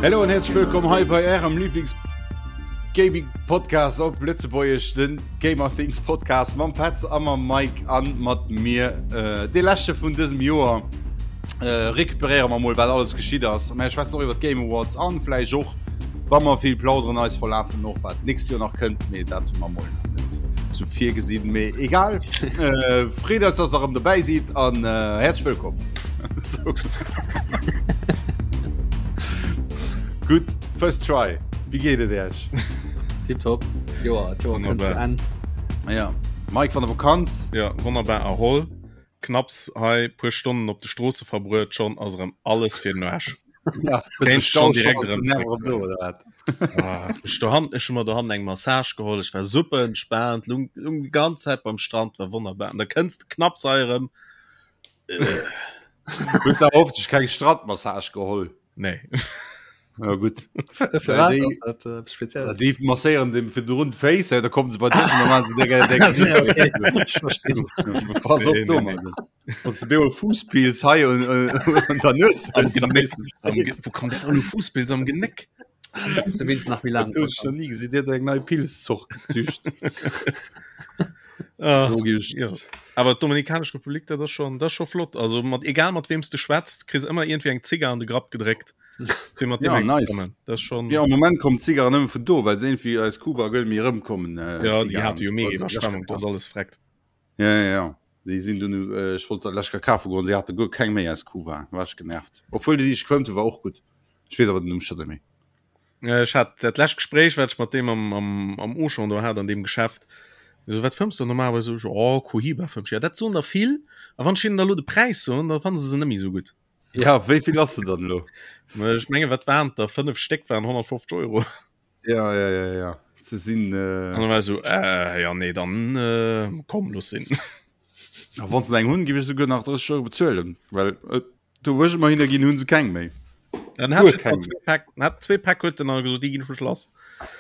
Hallo an herzlich willkommen hei bei Ärem Lieblings Gaming Podcast op Lëtzebuergesch, den Gamer Things Podcast mam Petz a mam Mike an mat mir. Äh, de leschte vun dësem Joer äh, recuperéiere mer mol wat alles geschitt ass. Mä schwätzen och iwwer d'Game Awards an vläicht och wa mer vill plauderen eis verlafen och wat d'nächst Joer nach kënnt, mee dat hu mer mol nach net sou virgesinn, mee egal. Äh, freet eis, dass der erëm dobäi sidd an äh, häerzlech wëllkomm. So. Gutt, first try. Wéi geet et Iech? Tipptopp. Joer, d'Joer kënnt zu Wonnerbar. Enn. Ja. Mike van der Vakanz. Ja, wonnerbar erholl. Knapps hei puer Stonnen op de Stroosse verbruet, schonn ass erëm alles fir den Aarsch. Ja, Kéint Stau schon direkt ass erëm den zréck. Nerv do, oder wat? Ah, ech dohan, ech hu mer dohannen eng Massage geholl, ech war super entspaant, lung, lung déi ganz Zäit beim Strand, war wonnerbar. An da kënns de knapps hei erëm. Hues du awer hoffentlech keng Strandmassage geholl? Nee. Ja gut. Fir wat ass dat äh, speziell? Déi masséieren dem fir run d'Féiss, da kommen se bei dech an dann se dir Okay, ich verstehe. Pass op Nee, do nee, nee. Mann. Wann du bemol Fuusspilz hei un un der Nues Am hues, dann Genéck. weess du Am Bescheed. Ge Wo kommt dat elo Fuusspilz am Genéck? Du wéinst nach méi laang Dat hunn ech nach ni gesinn. Dir huet eng nei Pilzzort gezücht. Ah, Do gi ech. ja. Awer d'Dominikanesch Republik, dat ass schon, dat ass scho flott. Also mat egal mat weem s de schwätzt, kriss ëmmer iergendwéi eng Zigar an de Grapp gedréckt. Fir mat Ja, deem eng ze nice. kommen. Dat ass schon. Ja, am Moment kommen d'Zigarren nëmme vun do, well se irgendwie aus Kuba gëll méi erëmkommen. Äh, Ja, déi Zigarren. hate jo mega Iwwerschwemmung, do ass alles vreckt. Ja, ja, ja. Déi sinn dunn, äh, ech wollt dat lech kafe goen, se hate guer keng méi aus Kuba. War ech genervt. Obwuel déi, déi ech gefëmmt hu, war och gutt. Ech weess awer den Numm scho net méi. Ech hat dat lescht Gespréich, wat ech mat deem am, am, am Auchan do hat, an deem Geschäft. So, wat fëmms du normalerweis? So, ech, oh, Cohiba fëmm ech. Ja, dat soen der vill. A wann ech hinnen da lo de Präis soen, da fanne se se net méi esou gutt. Ja, wéi vill ass se dann elo? Ech menge wat waren et der? 5 Stéck waren 150 Euro. Ja, ja, ja, ja. Se sinn. Äh... An dann war ech so, äh, ja, nee, dann äh, komm, looss sinn. A wann se eng hunn, giff ech souguer nach 30 Euro bezuelen, well äh, do wou ech ëmmer hinner ginn, hunn se keng méi. Dann hat Guer ich keng. zwee Päck, hat zwee Päck huet den gesot, déi ginn schon lass.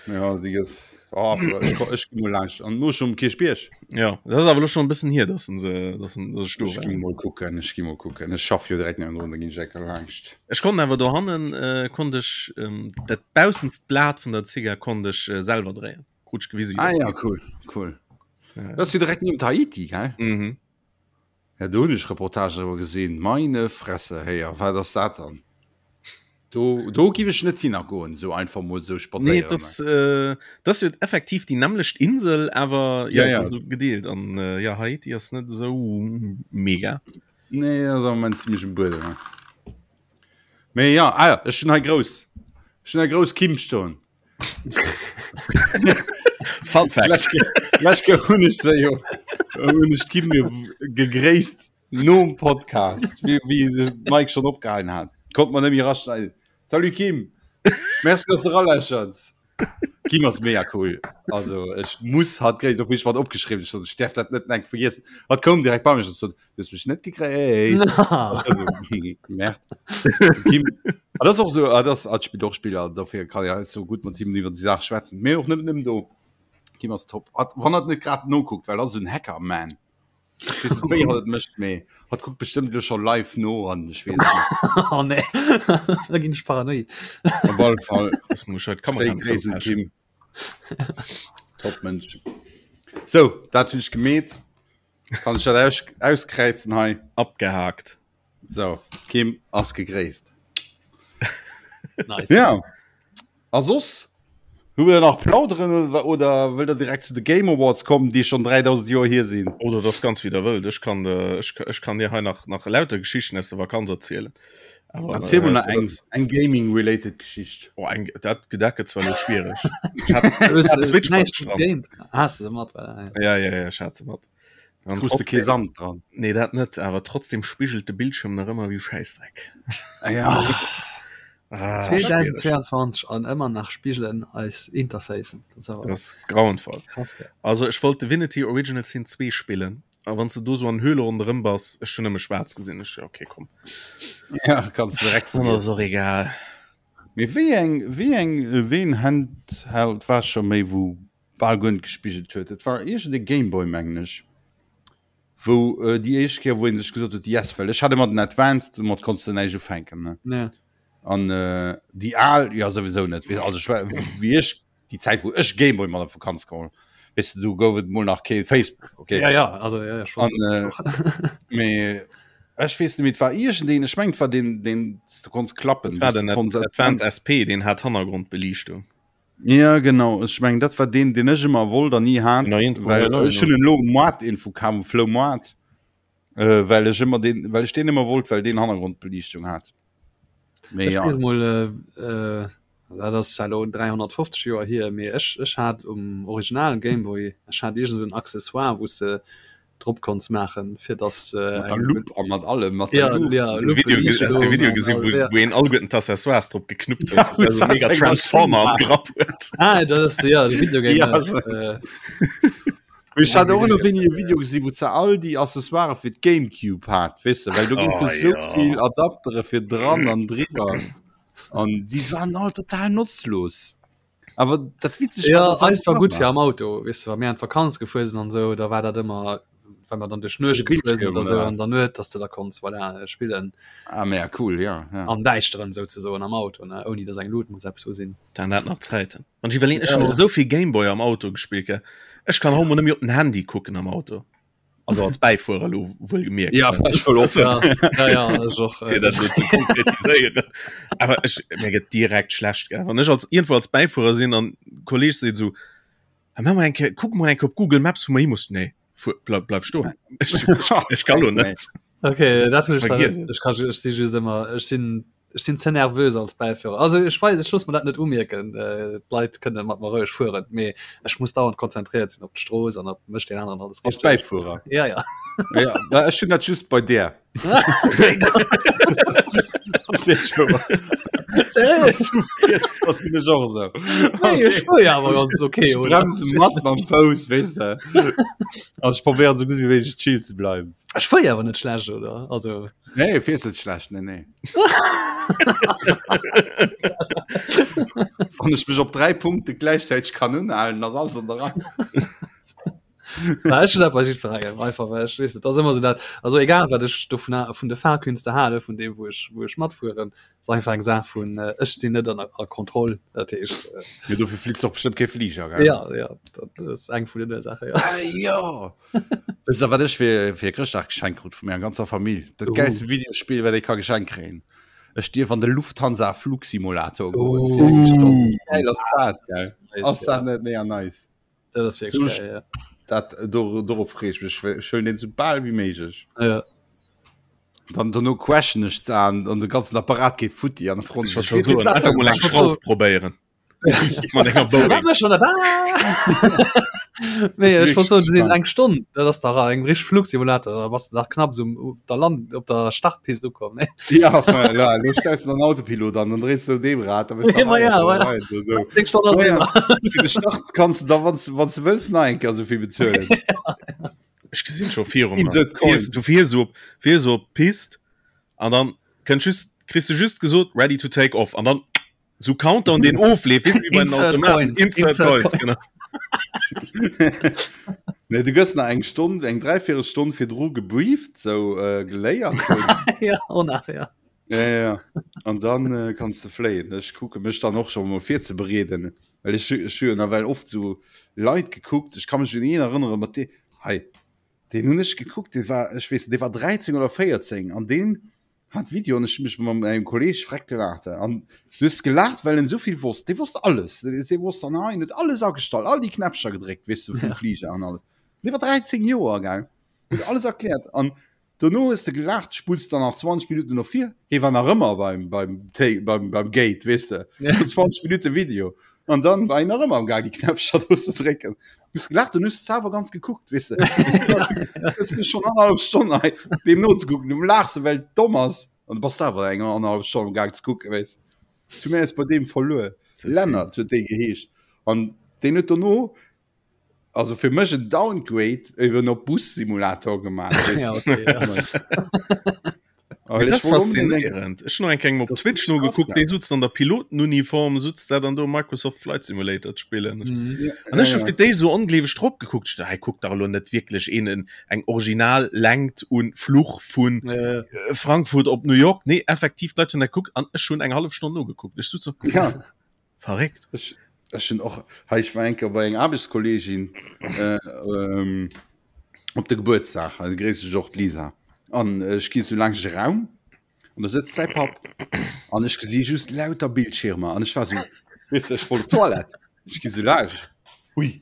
Ja, déi gëtt. Oh, ech, ko- ech gi mol laanscht an no schon um Kierchbierg. Ja, dat ass awer lo schon e bëssen hier, dass se, dass dass ech do Ech war. gi mol kucken, ech gi mol kucken. Ech schaff jo direkt niewendrun, da ginn ech enker laanscht. Ech konnt awer dohannen äh, konnt ech ähm, dat baussenst Blat vun der Zigar konnt ech äh, selwer dréien. Krut ech gewise. Ah ja, cool, cool. Ja. Dat ass jo direkt niewent Haiti, gell? Mhm. Ja, do hunn ech Reportagen driwwer gesinn. Meine Fresse, héier, wat ass dat dann? Do, do giff ech net hinner goen, sou einfach mol sou Nee, spadséieren. das, äh, das jo effektiv déi nämmlecht Insel, awer ja, Ja, ja. Also gedeelt an äh, ja Haiti ass net esou mega. Nee, ass am Moment ziemlich um Buedem. Ne? Mee ja, ah, ja, ech hunn hei grouss. Ech hunn hei grouss Kim stoen. Fun Fact. Lech hunn ech se jo hunn ech d'Kim jo gegréisst nom Podcast, wéi wéi de Mike schon opgehalen hat. Konnt man net méi raschneiden. Salut Kim! Merci, dass du ralächerts. Kim ass mega cool. Also ech muss hat gréisst, obwuel ech wat opgeschriwwen ech sot, ech däerf dat net enk vergiessen. Hat koum direkt bei mech an sot, du hues mech net gegréisst. Also, Merd. Kim, ah, das och so ah, das ah, spielt och Spieler dafür kann ja so gut mat him iwwer die Sache schwätzen. Mee och net nëmmen do. Kim ass top. Hat, wann hat net grad nokuckt, well ass en Hacker man. Ech weess net wéi hatt et mécht, mee hatt kuckt bestëmmt elo scho live no an ech weess et net. Oh nee, da ginn ech paranoid. Op alle Fall Das muss halt Kamera schéi Gréiss un Kim. Top Mënsch. Sou, dat hunn ech gemeet. Kann ech dat aus auskräizen hei? Abgehakt. Sou, Kim ass gegréisst. Nice. Ja. A soss? Hu mir nach plauderen oder, oder wëllt der direkt zu de Game Awards kommen, déi schon 3000 Joer hier sinn? Oder das ganz wéi der wëllt. Ech kann, äh, ech, ech kann dir hei nach, nach lauter Geschichten aus der Vakanz erzielen. Aber, Erziel mal nach eng, eng Gaming-related Geschicht. Oh, eng, dat, dat gëtt zwar lo schwierig. Ich hat, ich hat Switch mat Strand. Hast du se mat? Ja, ja, ja, ich hat se mat. An Krus de kee Sand dran? Nee, dat net, awer trotzdem spigelt de Bildschirm nach ëmmer wéi Schäissdreck. Ah, ja. Ah, schwierig. 2022 an ëmmer nach spigelen eis Interfacen. Das ass grauenvoll. Krass, gell? Also ech wollt Divinity Original Sin 2 spillen, a wann s de do sou an Höhle ronderëm bass, ech hunn nëmme schwaarz gesinn. Ech, okay, komm. Ja, kanns du direkt Dann ass och egal. Mee wéi eng, wéi eng, wéi en Handheld war scho méi wou bal guer net gespigelt huet? Et war iergend e Gameboy mengen ech, wou déi éischt Kéier wou een sech gesot huet, yes, well ech hat ëmmer den Advanced, domat konns de näischt ufänken, ne? Ja. An äh, déi al ja souwisou net. Also ech war, wéi ech déi Zäit wou ech Gameboy mat op Vakanz geholl, weess de, du gouf et mol nach kee Facebook, okay? Ja, ja, also ja, ja, An, äh, mee ech weess net méi, et war iergendeen, ech mengen et war deen, deen s du konns klappen, Dat war den Advance SP, deen hat Hannergrondbeliichtung. Ja genau, ech mengen dat war deen, deen ech ëmmer wollt an ni hat, well ech hunn en elo um Moart Info kaf, um Floumoart. Äh, well ech ëmmer den well ech den ëmmer wollt, well den Hannergrondbeliichtung hat. Mee ja. Mol, äh, äh, dat ass zwar lo 350 Joer hier, mee ech, ech hat um originalen Gameboy, ech hat irgend so en Accessoire, wou se drop konns maachen, fir dass äh, eng Lup an mat allem mat ja, ja, Lupe, Video, Video, Video gesinn, wo, ja. wo een alleguerten d'Accessoires drop geknuppt huet. Ja, also mega Transformer am Grapp huet. Ah, dat ass de, ja, de Videogame. Ja, äh, Ech hat och nach wéini e Video gesinn, wou ze all déi Accessoire fir d'Gamecube hat, weess de, well do ginn oh, sou ja. vill Adaptere fir dran an driwwer. An déi waren all total notzlos. Awer dat witzeg ja, war, eis war gut fir am Auto, weess de, wa mir an d'Vakanz gefuer sinn an sou, da war dat ëmmer wenn man dann duerch Nuecht gefuer sinn oder sou an der Nuet, dass du da konns voilà, spillen. Ah, mega cool, ja, ja. Am Däischteren souzesoen am Auto, ne, ouni dass eng Lut muss eppes u sinn. Dann dat nach Zäiten. Wann ech iwwerleen, ech hunn esou vill Gameboy am Auto gespillt, gell. Ech kann haut mol net méi op den Handy kucken am Auto. Also als Bäifuerer elo wuel gemierkt. Ja, ech wëll och. Ja, ja, ja, ech och. Fir dat elo ze konkretiséieren. Awer ech, mir gëtt direkt schlecht, gell. Wann ech als iergendwou als Bäifuerer sinn an Kolleg seet esou, Ah, mach mol eng Kéier, kuck mol eng Kéier op Google Maps, wou mer hi mussen. Nee, fuer, bleif, bleif stoen. Ech, ech, ech kann elo net. Okay, dat hunn ech dann net. Ech kann, ech si just ëmmer, ech sinn Ech sinn ze nervös als Bäiführer. Also ech weis, ech loosse mer dat net umierken. Äh, d'Leit kënne mat mer roueg fueren, mee ech muss dauernd konzentréiert sinn op d'Strooss an op mécht deen aneren alles Als richteg. Bäifuerer. Ja, ja. Ja, na, ech hunn dat just bei där. Das ist wouer. Seriös? Das sinn ech och esou. Nee, ech fuer ja awer ganz okay, Ech oder? bremse mat mam Fouss, weess de. Also ech probéieren esou gutt wéi méiglech chill ze bleiwen. Ech fuer ja awer net schlecht, oder? Also. Nee, fiers net schlecht, nee, nee. Wann ech mech op 3 Punkte gläichzäiteg kann unhalen, ass alles an der Rei. Na, ech hunn dat bei jiddwerengem einfach, well ech weess net, dat ass ëmmer esou dat, also egal wat ech dovun ha vun de Fahrkünste hale vun deem wou ech wou ech matfueren, ass einfach eng Saach vun äh, ech sinn net an a Kontroll, dat heescht äh, Jo, dofir flitt och bestëmmt kee Fliger, gell? ja, ja, dat ass eng vun den Ursaachen, ja. Ah, jo! Wësst der, wat ech fir, fir Chrëschtdag geschenkt krut vu menger ganzer Famill? Dat uh. geilste Videospill, wat ee ka geschenkt kréien. Ech dierf an de Lufthansa Flugsimulator goen. Uh. Geil ass dat, gell? Ass dat net mega nice? Dat ass wierklech geil, ja. Dat, do, dorop freeë ech mech. Ech huelen deen sou bal wéi méiglech. Ja. Dann dono crashen ech ze an, an de ganzen Apparat geet futti an de Front. Ech wollt schon soen, einfach mol eng Schrauf probéieren. Nee, ech wollt soen, du sees eng Stonn, dat ass dach eng richteg Flugsimulator, da bass de dach knapp esou op der Land, op der Startpist ukomm, ne? Ja, enfin, la, lo stells du den Autopilot an, dann dréis du deem Rad, da bist du Ma ja, voilà. rein, so, so. Eng Stonn ass Ja, ja. ëmmer. Fir de Start kanns du da, wann du, wann du wëlls, nach eng Kéier esou vill bezuelen. Ech gesinn scho viru mer. Insert coin. Fiers, du fiers op, fiers op d'Pist an dann kënnt just, kriss du just gesot, ready to take off an dann so Countdown den ofleef wis wie bei den Insert Automaten. Coins, Insert Insert Coins, genau. Nee, du gëss nach eng Stonn eng dreiviertel Stonn virdru gebrieft sou äh, geléiert ja, oh nach, ja. ja, ja, ja. An dann äh, kannst du fléien. Ech kucke mech dann och schon mol virzebereeden, well ech ech hu jo nawell oft sou Leit gekuckt. Ech ka mech un een erënnere mat dee hei deen hunn ech gekuckt, dee war ech weess net, dee war 13 oder 14 an deen hat Video an ech hun mech mat engem Kolleg freck gelaacht an du hues gelaacht well en souvill wosst dee wosst alles dee wosst an hei huet alles agestallt all déi Knäppcher gedréckt weess du vum ja. Flieger an alles dee war 13 Joer gell huet alles erkläert an dono hues de gelaacht spulls dann nach 20 Minuten no vir hie war nach ëmmer beim beim beim beim Gate weess de ja. 20 Minuten Video an dann war en nach ëmmer am Gang déi Knäppcher do ze drécken Du hues gelaacht und hues awer ganz gekuckt weess de schon anderthalb Stonn hei deem nozekucken du laachs well et domm ass an du bass awer eng anderthalb Stonn am Gaang ze kucken weess zu mir ass bei deem verluer Lennart huet dee geheescht an deen huet dono also fir mech en Downgrade eben op Bus-Simulator gemaach weess Ja, okay, ja. Dat ass faszinierend. Ech hunn eng Kéier op Twitch nogekuckt, dee sutzt an der Pilotenuniform, sutzt dat an do Microsoft Flight Simulator ze spillen. Mhm. An ech hu fir d'éischt esou ongleeweg drop gekuckt. Ech dacht, hei kuckt dach elo net wierklech een en eng original Längt un Fluch vun ja, ja. Äh, Frankfurt op New York. Nee, effektiv, d'Leit hunn dat gekuckt an ech hunn eng hallef Stonn nogekuckt. Ech sutz so, ja. Verréckt. Ech, ech hunn och, hei, ech war eng Kéier bei eng Aarbechtskolleegin äh, ähm, op de Gebuertsdag, also gréiss ech och d'Lisa. An ech ginn sou laang e Raum an do sëtzt säi Papp an ech gesi just lauter Bildschirmer an ech war sou, weess de, ech wollt op d'Toilette, ech gi sou laang, hui,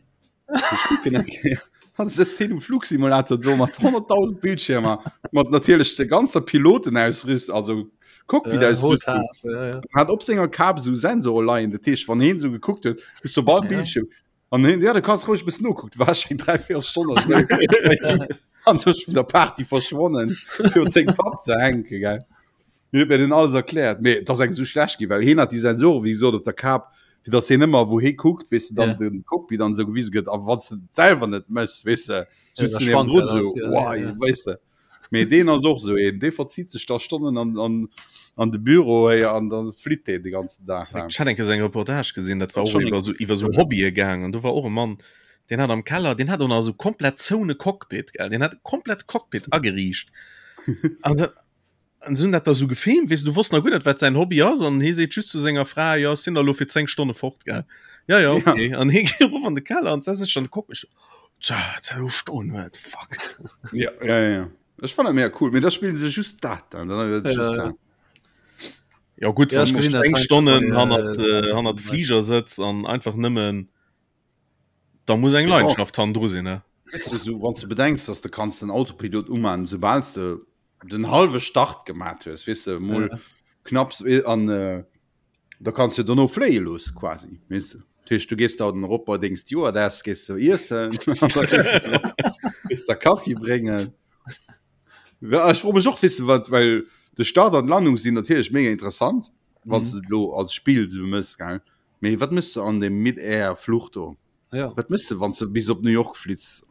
ech kucken eng Kéier an sëtzt hien um Flugsimulator do mat 100.000 Bildschirmer, mat natierlech der ganzer Pilotenausrüstung, also Cockpit-Ausrüstung. Ja, ja. Hat op senger Kap sou Sensore leien, dat heescht, wann hien sou gekuckt huet, hues du bal Bildschirm. An hin, ja, du kannst ruhig bis noguckt, war eng 3 Stonnen an sech vun der Party verschwonnen fir seng Papp ze hänke gell. Mir huet mir den alles erkläert, mee et ass engem sou schlecht gi, well hien hat déi Sensoren wéi gesot op der Kap, fir datt hien ëmmer wou hie kuckt, weess de, dann Ja. den Cockpit an esou gewise gëtt a wann s de et selwer net mëss, weess de, Ja, sutz da du schwankt niewendrun dat alles, sou, ja, wow, ja, ja. weess de. Mee deen ass och sou een, dee verzitt sech da Stonnen an, an, an de Büro héi an dann flitt deen de ganzen Dag. Ech hat eng Kéier sou eng Reportage gesinn, dat war Das och schon iwwer sou iwwer sou Hobbye gaang an do war och e Mann, deen hat am Keller, deen hat och nach sou komplett zoune Cockpit, gell, deen hat e komplett Cockpit ageriicht an da an se hunn dat da sou gefilmt, weess de, du wosst nach guer net, wat säin Hobby ass an hie seet just zu senger Fra, jo, ech sinn da lo fir 10 Stonne fort, gell, ja, ja, okay, an hie geet erof an de Keller an setzt sech an de Cockpit, stoen huet fuck ja, ja, ja, ja. Ech fand mega cool mir da spielen se just dat dann, dann ja, just dat. Ja gut ja, eng Stonnen hannert äh, hannert Flieger sëtz an einfach nëmmen da muss eng Leidenschaft han dru sinn ne weißt du, so, wann du bedenkst dass du kannst den Autopilot umman sobals du den halbe Start gemacht hues weißt du mol ja. knapps an äh, Da kanns du dono fléie loosse quasi, weess de. Dat heescht, du gees da den erop bei deng Stewardess, gees du iessen, gees der Kaffi bréngen. Ja, ech froe mech och, weess de wat, well de Start an d'Landung sinn natierlech mega interessant, wann s de et elo als Spill esou mëss, gell. Mee wat mëss de an deem Mid-Air-Fluch do? Ja. Wat mëss de, wann s de bis op New York flitts?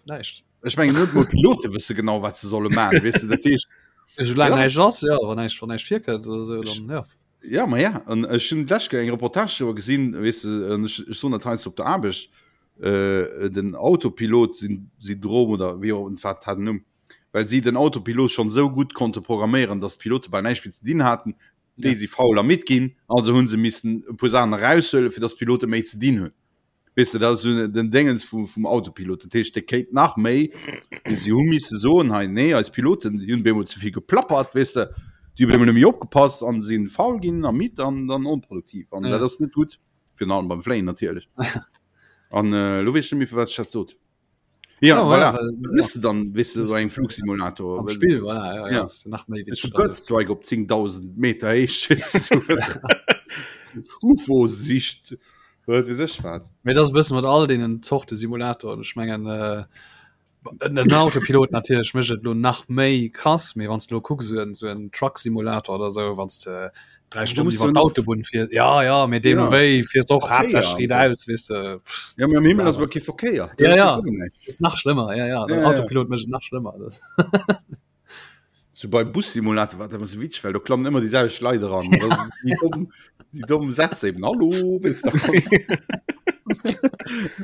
Näischt. Ech mengen net mol Pilote wësse genau wat se solle man weess de dat heescht. Soulaang ja. näischt ass ja wann näischt wann näischt virkënnt oder sou dann ja. Ja ma ja an ech hunn d'lescht Kéier eng Reportage driwwer gesinn weess de an ech ech soen dat heiansdo op der Aarbecht äh, den Autopilot syn Syndrom oder wéi och wat hat den Numm well si den Autopilot schonn esou gutt konnte programméieren, datt d'Pilote bal näischt méi ze dinn haten, déi Ja. si faul a midd ginn, also hunn se missen e puer Saachen eraushuelen, fir datt d'Pilote méi ze dinn hunn. Weess de, dat ass esou den Déngens vum, vum Autopilot. Dat heescht, dee kéint nach méi, mee si hu misse soen, hei, nee, eis Piloten, déi hunn bemol ze vill geplappert, weess de, déi hu bemol net méi opgepasst an si faul ginn a midd an dann onproduktiv. An Ja. dat ass net gutt, virun allem beim Fléien natierlech. An äh, lo weess ech net méi, firwat ech dat sot. Ja, Ja, voilà. well, Wat mëss de dann, weess de, bei engem Flugsimulator? Am Well- Spill, voilà, ja, ja. Ja. Ist nach méi Ist Bird Strike op 10.000 Meter Héicht. UFO sicht. Wat weess ech wat. Mee dat ass e bësse mat all deenen Zorte Simulatoren. Ech mengen äh, den Autopilot natierlech mécht et lo nach méi krass, mee wann s de lo kucks, esou en, esou en Truck-Simulator oder esou, wann s de drei Stunden musst iwwer du noch- d'Autobunn fiers, ja, ja, mee deemno Ja. wéi fiers och Verkéier haaptsächlech an riit aus, weess de. Pff, Ja, mee am Himmel ass awer kee Verkéier. Do Ja, ass ja. guer näischt. Das ist nach schlimmer, ja, ja. Den Ja, ja. Autopilot mécht et nach schlimmer. Das. So beim Bussimulator war dat ëmmer sou witzeg, well do klammen ëmmer déi selwecht Leit eran. Dat ass déi domm, déi domm Sätz eben. Hallo, bist du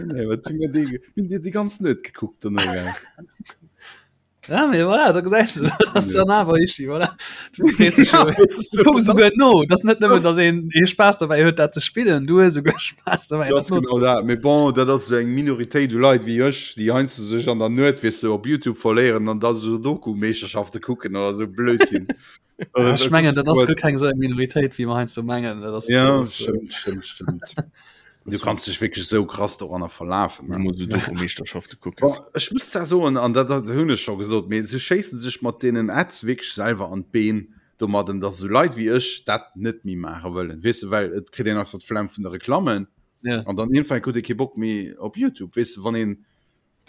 Nee, wat hunn mir déi, hunn dir déi ganz Nuet gekuckt dono, gell? Ja, mee voilà, da gesäis du, dat ass dann awer Ischi, voilà. Du frees dech Ja, jo, das ist du kucks so, souguer no. Dat ass net nëmmen, Das- dass een ee Spaass dobäi huet, dat ze spillen, du hues souguer Spaass dobäi, Das dat ass genau noze. dat. Mee bon, dat ass esou eng Minoritéit u Leit wéi ech, déi heiansdo sech an der Nuet, weess de, op Youtube verléieren an da Sudoku-Meeschterschafte kucken oder esou Blödsinn. Ja, ech mengen, dat ass guer keng esou eng Minoritéit, wéi mer heiansdo mengen. Dat ass, Ja, dat ass, äh, stëmmt, stëmmt, stëmmt. Du kanns dech wierklech esou krass doranner verlafen. Ech muss Sudoku-Meeschterschafte kucken. Bon, ech muss zwar soen, an dat, dat hunn ech scho gesot, mee se schéissen sech mat deenen Ads wierklech selwer an d'Been domadden, dass esou Leit wéi ech dat net méi maache wëllen, weess de, well et kritt een einfach d'Flemm vun de Reklammen Ja. an dann iergendwann kritt ee kee Bock méi op Youtube, weess de, wann een,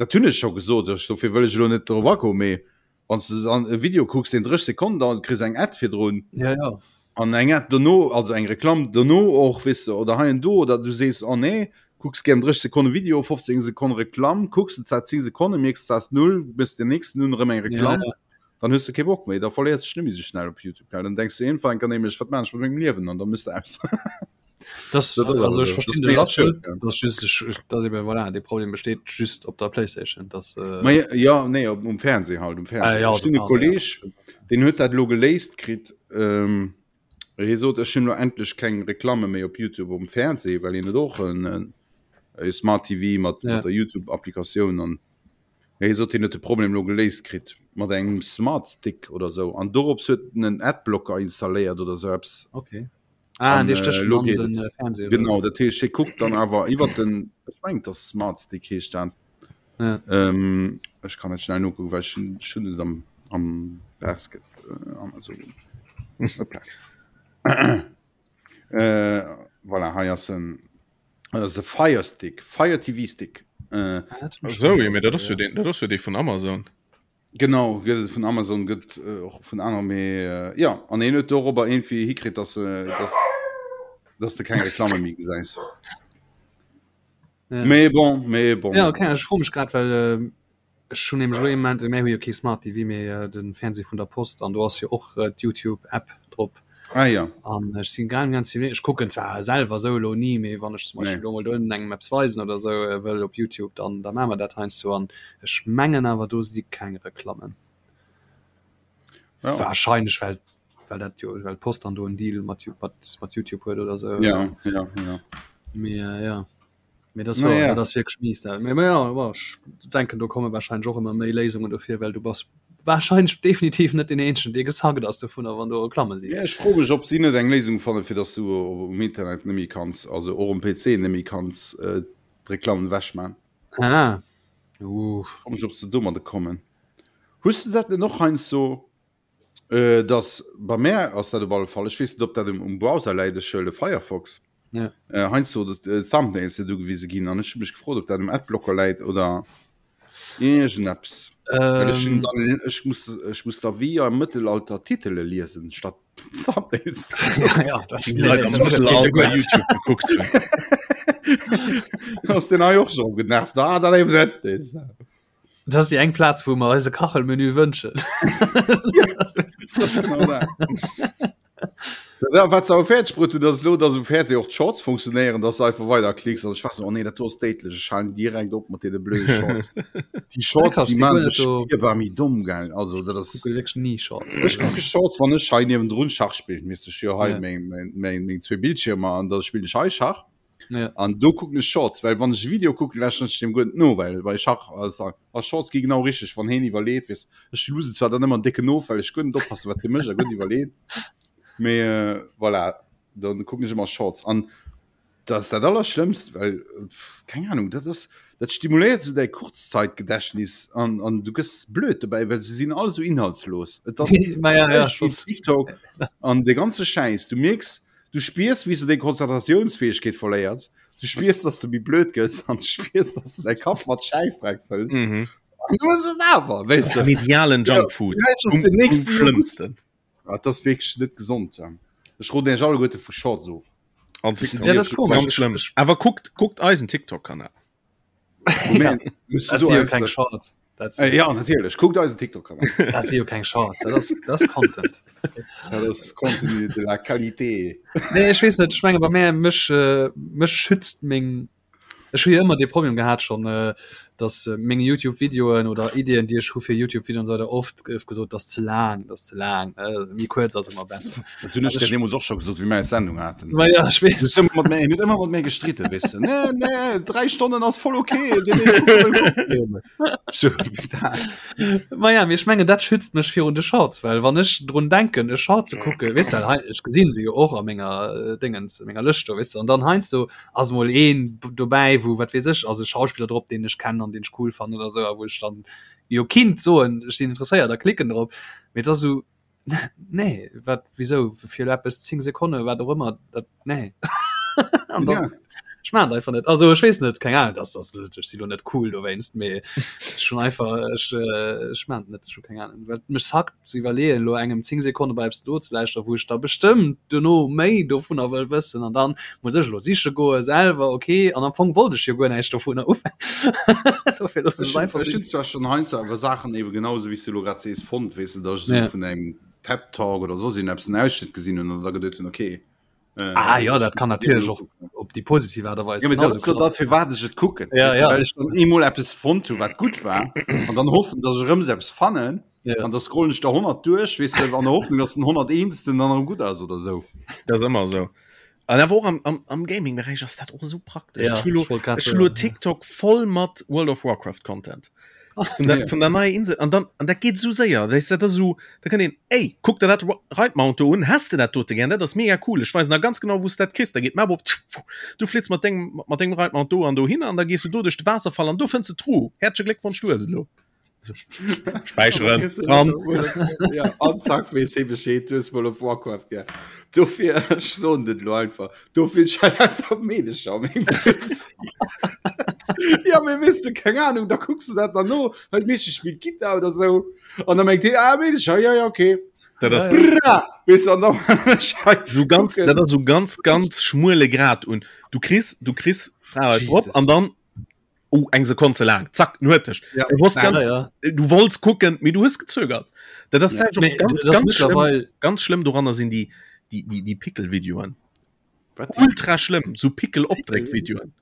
dat hunn ech scho gesot, ech, dofir wëll ech elo net drop agoen, mee wann s de dann e Video kucks, deen 30 Sekonnen dauert, kriss eng Ad virdrun. Ja, ja. An eng Ad dono, also eng Reklamm dono och, weess de, oder hei an do, oder du sees, oh nee, kucks gären 30 Sekonne Video, 15 Sekonne Reklamm, kucks de zwar 10 Sekonne, mierks, s ass null, méchs den nächsten un, erëm eng Reklamm. Ja, ja. Dann hues de kee Bock méi, da verléiers de dech net méi sou schnell op YouTube, gell? Dann denks de iergendwann enker nämlech, wat maan ech mat mengem Liewen? An da mëss de aus. Das, das also ich verstehe den absolut das just, ich, das eben, voilà, de Problem besteht just op der Playstation das, äh Ma, ja nee op, um Fernseh halt um Fernseh. Ah, ja, also, Kolleg ja. den huet dat lo geléist kritt ähm, hie sot ech hunn lo endlech keng Reklamme méi op YouTube um Fernseh, well hien huet och en, en, e Smart TV mat, ja. mat der YouTube Applikatioun an hie sot hien huet de Problem lo geléist kritt mat engem Smart Stick oder sou an dorops huet en en Adblocker installéiert oder sou eppes. Okay. Ah, an, äh, lo geht den, äh, Fernseh, genau dat heescht hie kuckt dann awer iwwer den ech meng das Smart Stick heescht dat ja. ähm, ech kann net schnell nokucken well ech hunn et am am Basket äh, Amazon Hoppla. äh, voilà, hei ass en ass e Fire Stick Fire TV Stick äh, ah, so, ja, dat ass jo den dat ass jo dee vun Amazon Genau, gëtt et vun Amazon, gëtt och vun aner, mee jo, an hien huet dorobber iergendwéi hikritt, dass dass dass de keng Reklamme méi gesäis. Ja. Mee bon, mee bon. Ja, okay, ech froe mech grad, well ech hunn nämlech elo ee Moment, mir hu jo kee Smart TV, mee de Fernseh vun der Post an do ass jo och d'Youtube-App drop. Ah ja. An ech sinn ganz ganz ech kucken zwar selwer esou elo ni, mee wann ech zum Beispill elo mol do engem eppes weisen oder esou wëll op Youtube, dann da maache mer dat heiansdo an ech mengen awer do si keng Reklammen. Ja. Wahrscheinlech well well dat jo well d'Post dann do en Deal mat mat mat Youtube huet oder esou. Ja, ja, ja. Mee ja. Mee das war, ja. das wirklich mies da. Mee, ja, ja, ich denken do komme wahrscheinlich och immer méi Léisungen dofir, well du bass wahrscheinlich definitiv net den eenzegen, dee gesackt ass dovunner, wann do Reklamme sinn. Ja, ech froe mech, ob si net eng Léisung fanne fir dass du um Internet net méi kanns, also och um PC net méi kanns äh, d'Reklammen ewechman. Ah. Uh. Froe mech, ob se domadde kommen. Hues de dat net och heiansdo? Äh, dass bei mär ass dat op alle Fall, ech weess net, ob dat um, um Browser läit, ech huele Firefox. Ja. Äh, heiansdo dat, äh, Thumbnails net ugewise ginn an ech hu mech gefrot, ob dat um Adblocker läit oder iergendeppes. Well ech hunn Ähm, dann, ech muss, ech muss da wéi am Mëttelalter Titele liesen, statt Thumbnails. ja, ja, das Die Leit am Mëttelalter YouTube gekuckt hunn. Ass den hei och schon genervt. Ah, dat eben net is. Das ass déi eng Plaz, wou mer eise Kachelmenü wënschen. Ja, wat se awer fäerdeg bruet hunn, ass elo, dass um Fernseh och d'Shorts funktionéieren, dass du einfach weider klicks. An ech war so, oh nee, dat do ass déidlech, ech halen direkt op mat deene blöde Shorts. Déi Shorts, déi man dech spierbar méi domm, gell? Also dat ass. Kucke wierklech ni Shorts. Ech kucke Shorts, wann ech hei niewendrun Schach spillen. Weess ech jo hei meng, meng, meng, meng zwee Bildschirmer an da spillen ech hei Schach. Ja. An do kucken ech Shorts, well wann ech e Video kucken, lauschteren ech deem guer net no, well bei Schach ass a Shorts gi genau richteg, wann heen iwwerleet, weess ech lusen zwar dann ëmmer en décken of, well ech guer net oppassen, wat hie mécht a guer net iwwerleet, mee äh, voilà, dann kucken ech ëmmer Shorts an dat ass dat Allerschlëmmst, well keng Ahnung, dat ass dat stimuléiert esou däi Kurzzeitgedächtnis an an du gëss blöd dobäi, well se sinn all esou inhaltslos. Et ass Ma ja, ja, wéi TikTok an de ganze Schäiss, du mierks Du spiers, wéi s du deng Konzentratiounsfäegkeet verléiers. Du spiers, dass du méi blöd gëss an du spiers, dass du däi Kapp mat Schäissdreck fëlls. Mhm. An du hues et awer, weess du. Medialen Junkfood. Ja, das Um, den um nächsten schlëmmsten. Ah, das ass wierklech net gesond. Ja. Ech roden iech alleguerte vu Shorts of. An TikTok. Ja, das ist komisch. Ganz schlimm. Awer kuckt, kuckt eisen TikTok-Kanal. Moment, müsst du Dat do si jo einfach- keng Shorts. Dat si Äh, ja, natierlech. Kuckt eisen TikTok-Kanal. dat si jo keng Shorts. Dat ass, dat ass Content. Dat ass Contenu de la Qualité. Nee, ech weess net, ech menge bei mär mech äh, mech schützt meng ech hu jo ëmmer dee Problem gehat schon äh, dass äh, meng YouTube-Videoen oder Ideen, déi ech hu fir YouTube-Videoen und so weiter oft gouf gesot, dat ass ze laang, dat ass ze laang, äh, méi kuerz ass ëmmer besser. Dat hunn ech dir deemools och scho gesot, wéi mir eis Sendung haten. Ma ja, ech Du weess. hues ëmmer mat mir, huet ëmmer mat mir gestritten, weess du. Nee, nee, dräi Stonnen ass voll okay. Nee, nee, guck mal. So, bitte. Ma ja, mee ech mengen dat schützt mech virun de Shorts, well wann ech drun denken e Short ze kucke, weess du, well hei ech gesinn se jo och a menger äh, Dingens, menger Lëscht do, weess du, an dann heiansdo ass mol een dobäi, wou wat weess ech, ass e Schauspiller drop, deen ech kennen an deen ech cool fannen oder sou, a wou ech dann jo kinnt soen, ech sinn interesséiert a klicken drop, mee et ass esou nee wat wieso fir eppes 10 Sekonne wat och ëmmer dat nee. An dann Ja. Ech maan et einfach net. Also ech weess net, keng Ahnung, dass das ech si lo net cool dowéinst, mee schon einfach ech äh, ech maan et net, ech hu keng Ahnung. Well mech sackt ze iwwerleeën, lo engem 10 Sekonne bei eppes do ze lauschteren, wou ech da bestëmmt duerno méi dovunner wëll wëssen an dann muss ech lo siche goe selwer, okay, an am Fong wollt ech jo guer näischt dovunner ufänken. Dofir loossen ech Ech et einfach hunn sinn. zwar schon heiansdo awer Saachen eben genau esou wéi s du elo grad sees fonnt, weess de, dass ech esou Ja. vun engem TED Talk oder soss iergendeppes en Ausschnitt gesinn hunn an da geduet hunn, okay, Äh, ah ja, dat kann natierlech och op déi positiv Aart a Weis. Ja, dat ass dat fir wat ech et kucken. Ja, ja. Well ech dann eemol eppes fonnt hu wat gutt war an dann hoffen, datt ech erëm esou eppes fannen Ja. an da scrollen ech der 100 duerch, weess de, an der Hoffnung, datt den 101. dann erëm gutt ass oder sou. Dat ass ëmmer esou. An awer och am, am, am Gaming-Beräich ass dat och esou praktesch. Ja, Ech hu lo, ech wollt grad ech hu lo soen, ja. TikTok voll mat World of Warcraft Content. Vun der, vun der neier Insel an dann an dat geet sou séier weißt du, dat ass sou da kann een ey kuck der dat Reitmount do un has de dat dote gern dat ass mega cool ech weisen der ganz genau wous dat kriss da geet d'Map op du flitz mat dengem mat dengem Reitmount do an dohinner an da gees du do duerch de Waasserfall an do fënns de d'Truh häerzleche Gléckwonsch du hues et elo späicheren dran Ja, an zack weess hee Bescheed, du hues World of Warcraft gär. Dofir, ech soen dat elo einfach, dofir lauter Meedecher am Ja, mee weess du, keng Ahnung, da kucks du dat dann no, hei d'Meedche spillt Gittar oder sou, an da mengt hee, ah, Meedecher, ja, ja, okay. Dat ass Bra! Weess du, an da so ganz, dat ass so ganz, ganz schmuele Grad un. Du kriss, du kriss Fra drop an dann oh, eng Sekonn ze laang, zack, en huet dech. Ja. Du wosst Ja, ganz, ja. du wollts kucken, mee du hues gezögert. Dat ass Ja. ja. Mee, ganz, das ganz, schlimm, mittlerweile ganz schlimm doranner sinn déi, déi, déi, déi Pickel-Videoen. Wat? Ultra schlimm, so Pickel-Opdréck-Videoen.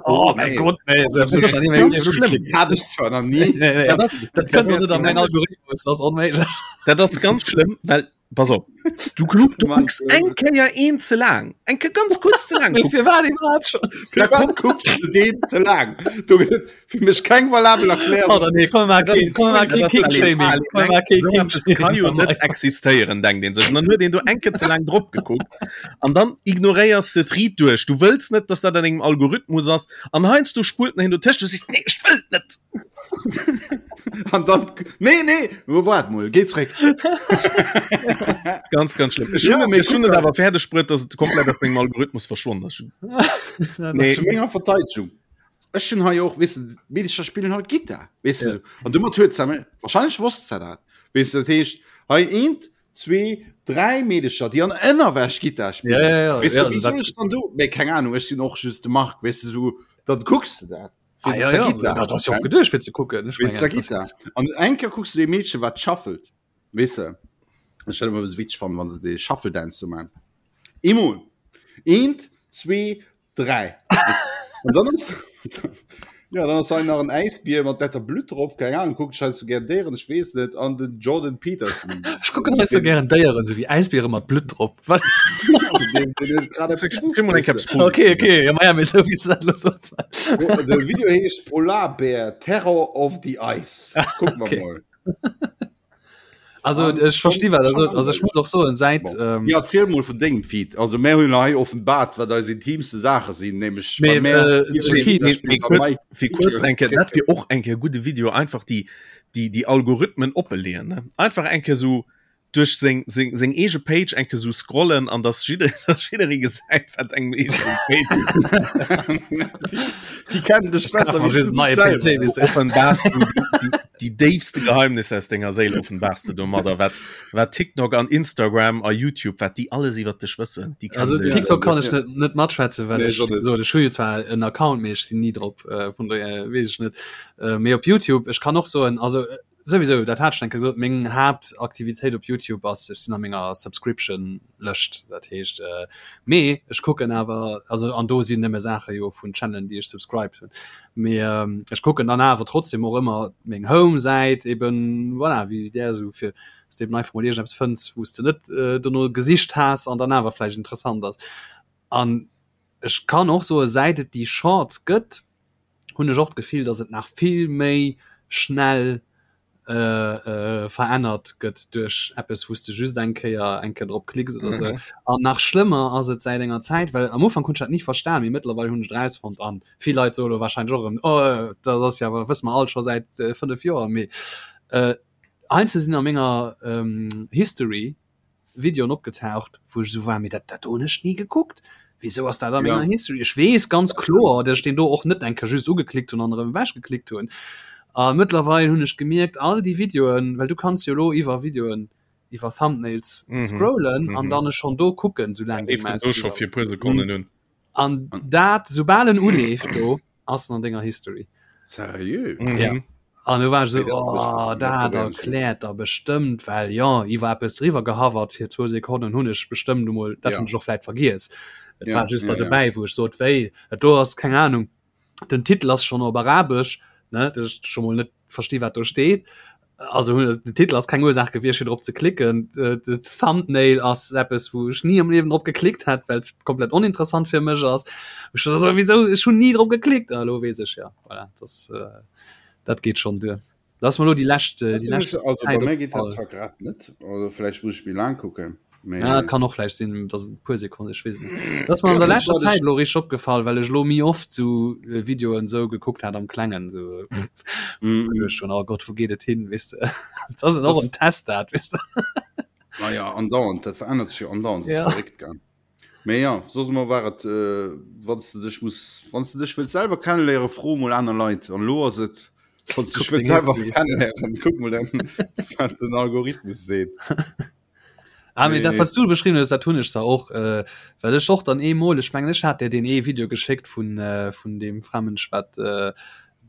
Oh mein Nee. Gott, nee, Also, das ist ganz ganz schlimm. Hat ech zwar nach nie. Nee, nee. Dat ass, Dat kënnt doch net an mein Algorithmus, das ist onméiglech. dat ass ganz schlimm, well, pass op, du, du Mann, kucks eng Kéier een ze laang, eng Kéier ganz kurz ze laang. Fir wat iwwerhaupt schon? Fir wat kucks du deen ze laang? Do gëtt et fir mech keng valabel Erklärung. Oder nee, komm mal Dat keen, komm mal keen King-Shaming. Komm mal keen So eppes kann jo King-Shaming. net existéieren, denkt een sech. An dann huet een do eng Kéier ze laang drop gekuckt. An dann ignoréiers de d'Riit duerch. Du wëlls net, dass dat an engem Algorithmus ass. An heiansdo spullt en hin dotëscht. Du sees, nee, ech wëll et net. An dann, nee, nee, wo waart mol, géi zréck. Ganz, ganz schlimm. Ech Ja, hunn mee ech hunn kuck et mal. awer fäerdeg bruet, dass et komplett aus mengem Algorithmus verschwonnen ass. Nee. Zu menger Verteidigung. Ech hunn hei och, weess de, d'Meedecher spillen halt Gittar, weess de. An domat huet se, wahrscheinlech wosst se dat, weess de, dat heescht, hei eent, zwee, dräi Meedecher, déi an Ënnerwäsch Gittar spillen. Ja, ja, ja. Weess de, Ja, wéi also soll dat- ech dann do, mee keng Ahnung, ech sinn och just de Marc, weess de, sou, dann kucks de dat. Ah, ja, ja, dat ass jo och geduecht fir ze kucken. Ech Wéinst der mengen, das- Gittar. An eng Kéier kucks du dee Meedchen, wat shuffelt, weess de. Ech hätt ëmmer e bësse witzeg fannen, wann se dee Shuffle Dance do man. Eemol, eent, zwee, 3 an dann ass ja dann ass hei nach en Äisbier mat detter Blutt drop keng Ahnung kuckt scheinst du gär Déieren ech weess net an den Jordan Peterson Ech kucken hei so gären Déieren so wéi Äisbiere mat Blutt drop. Wat? Den- den huet grad eppes Kriss mol eng Kéier eppes Positives. Okay, okay, ja, ma ja, mee sou wéi s du dat elo soos. De Video heescht Polarbär Terror of the Ice Kuck mer Okay. mol. Also An ech versti wat also, schon also ech muss och soen säit Bon. ähm, Ja, erziel mol vun dengem Feed. Also mär hunn hei offenbart, wat eis intimste Saache sinn, nämlech Mee, bei mär äh, jiddereen de Feed- der spillt Mee bei kurz, Mike fir kurz Video eng Kéier, dat wier och eng Kéier gudde Video, einfach déi, déi, déi Algorithmen oppeleeën, ne? Einfach eng Kéier sou duerch seng, seng, seng eege Page eng Kéier sou scrollen an dass jidder, dass jidderee gesäit, wat engem eegene Page Déi kennen dech besser Ach, wéi just du neie dech PC, selwer. weess du. offenbars du déi, déi déifste Geheimnisse aus denger Séil offenbars du domadder, wat, wat TikTok an Instagram a YouTube, wat déi alles iwwer dech wëssen. Déi kennen Also dech. TikTok kann ech net net matschwätzen, well Nee, ech ech och net. so ech hu jo zwar en Account, mee ech sinn ni drop, äh, vun dohier weess ech net. Äh, mee op YouTube, ech kann och soen, also äh, souwisou, dat hat ech eng Kéier gesot, meng Haaptaktivitéit op YouTube ass, ech sinn a menger Subscription Lëscht, dat heescht äh, mee ech kucken awer, also an do sinn nëmme Saache jo vun Channelen, déi ech subscribed hunn. Mee ähm, ech kucken dann awer trotzdem och ëmmer meng Home-Säit eben, voilà, wéi där esou fir dass de eben einfach mol iergendeppes fënns, wou s de net äh, dono gesicht has an dann awer vläicht interessant ass. An ech kann och soe säit et déi Shorts gëtt, hunn ech och d'Gefill, dass et nach vill méi schnell verännert gëtt duerch eppes, wou s de just eng Kéier eng Kéier drop klicks oder sou. An nach schlëmmer ass et säit enger Zäit, well am Ufank hunn ech dat ni verstan, mee mëttlerweil hunn ech et erausfonnt an vill Leit soe lo warscheinlech och erëm, oh dat ass jo awer, wësse mer all scho säit 5 Joer, mee heiansdo sinn a menger History Videoen opgetaucht, wou ech esou war, mee dat dat do hunn ech ni gekuckt. Wieso ass dat a menger ja. History? Ech weess ganz kloer, dass ech den do och net eng Kéier just ugeklickt hunn an erëm ewech geklickt hunn. A mëttlerweil hunn ech gemierkt, all déi Videoen, well du kanns jo elo iwwer Videoen, iwwer Thumbnails mhm. scrollen mhm. an dann schon do kucken, soulaang déi Maus do scho fir puer Sekonnen hunn. An dat, soubal en uleeft do, ass en an denger History. Seriö? Mhm. Ja. An du war so oh, dat erkläert der bestëmmt, well ja iwwer eppes driwwer gehavert fir zwou Sekonnen hunn ech bestëmmt emol dat ja. hunn ech och vläit vergiess. Et ja, war just ja, da dobäi, wou ech sot wéi et do ass keng Ahnung. Den Titel ass schon op Arabesch ne dat ech schon mol net versti wat do steet. Also den Titel ass keng Ursaach gewiescht fir drop ze klicken. De Thumbnail ass eppes wou ech ni am Liewen drop geklickt hätt, well et komplett oninteressant fir mech ass. Ech so, wieso ech hunn ni drop geklickt. Ah, lo weess ech ja. Voilà, das, äh, dat geet schon duer. Lass mal lo déi lescht äh, déi lescht Also bei mir geet dat zwar grad net, also vläicht muss ech méi laang kucken. Mee Ja, kann och vläicht sinn, dass et puer Sekonnen, ech weess net. Dat ass mir an der leschter Zäit lo richteg opgefall, well ech lo méi oft sou äh, Videoen sou gekuckt hat am Klengen sou. Mm. Ech schon, oh Gott, wou geet et hin, weess de. Dat ass och en Test dat, weess de. Naja, andauernd, dat verännert sech jo andauernd, dat Ja. ass verréckt, gell. Mee ja, soss emol war et, äh, wann s de dech muss, wann s de dech wëlls selwer kenneléieren, fro mol aner Leit. An elo ass et, wann s de dech Kuck wëlls deng selwer Histories. kenneléieren, kuck mol dann, wat den Algorithmus seet. Ah, mee dat Mee wat du beschriwwen hues, dat hunn ech zwar och, äh, well ech och dann eemol, ech mengen ech hat der deen ee Video geschéckt vun, äh, vun deem Framënsch wat äh,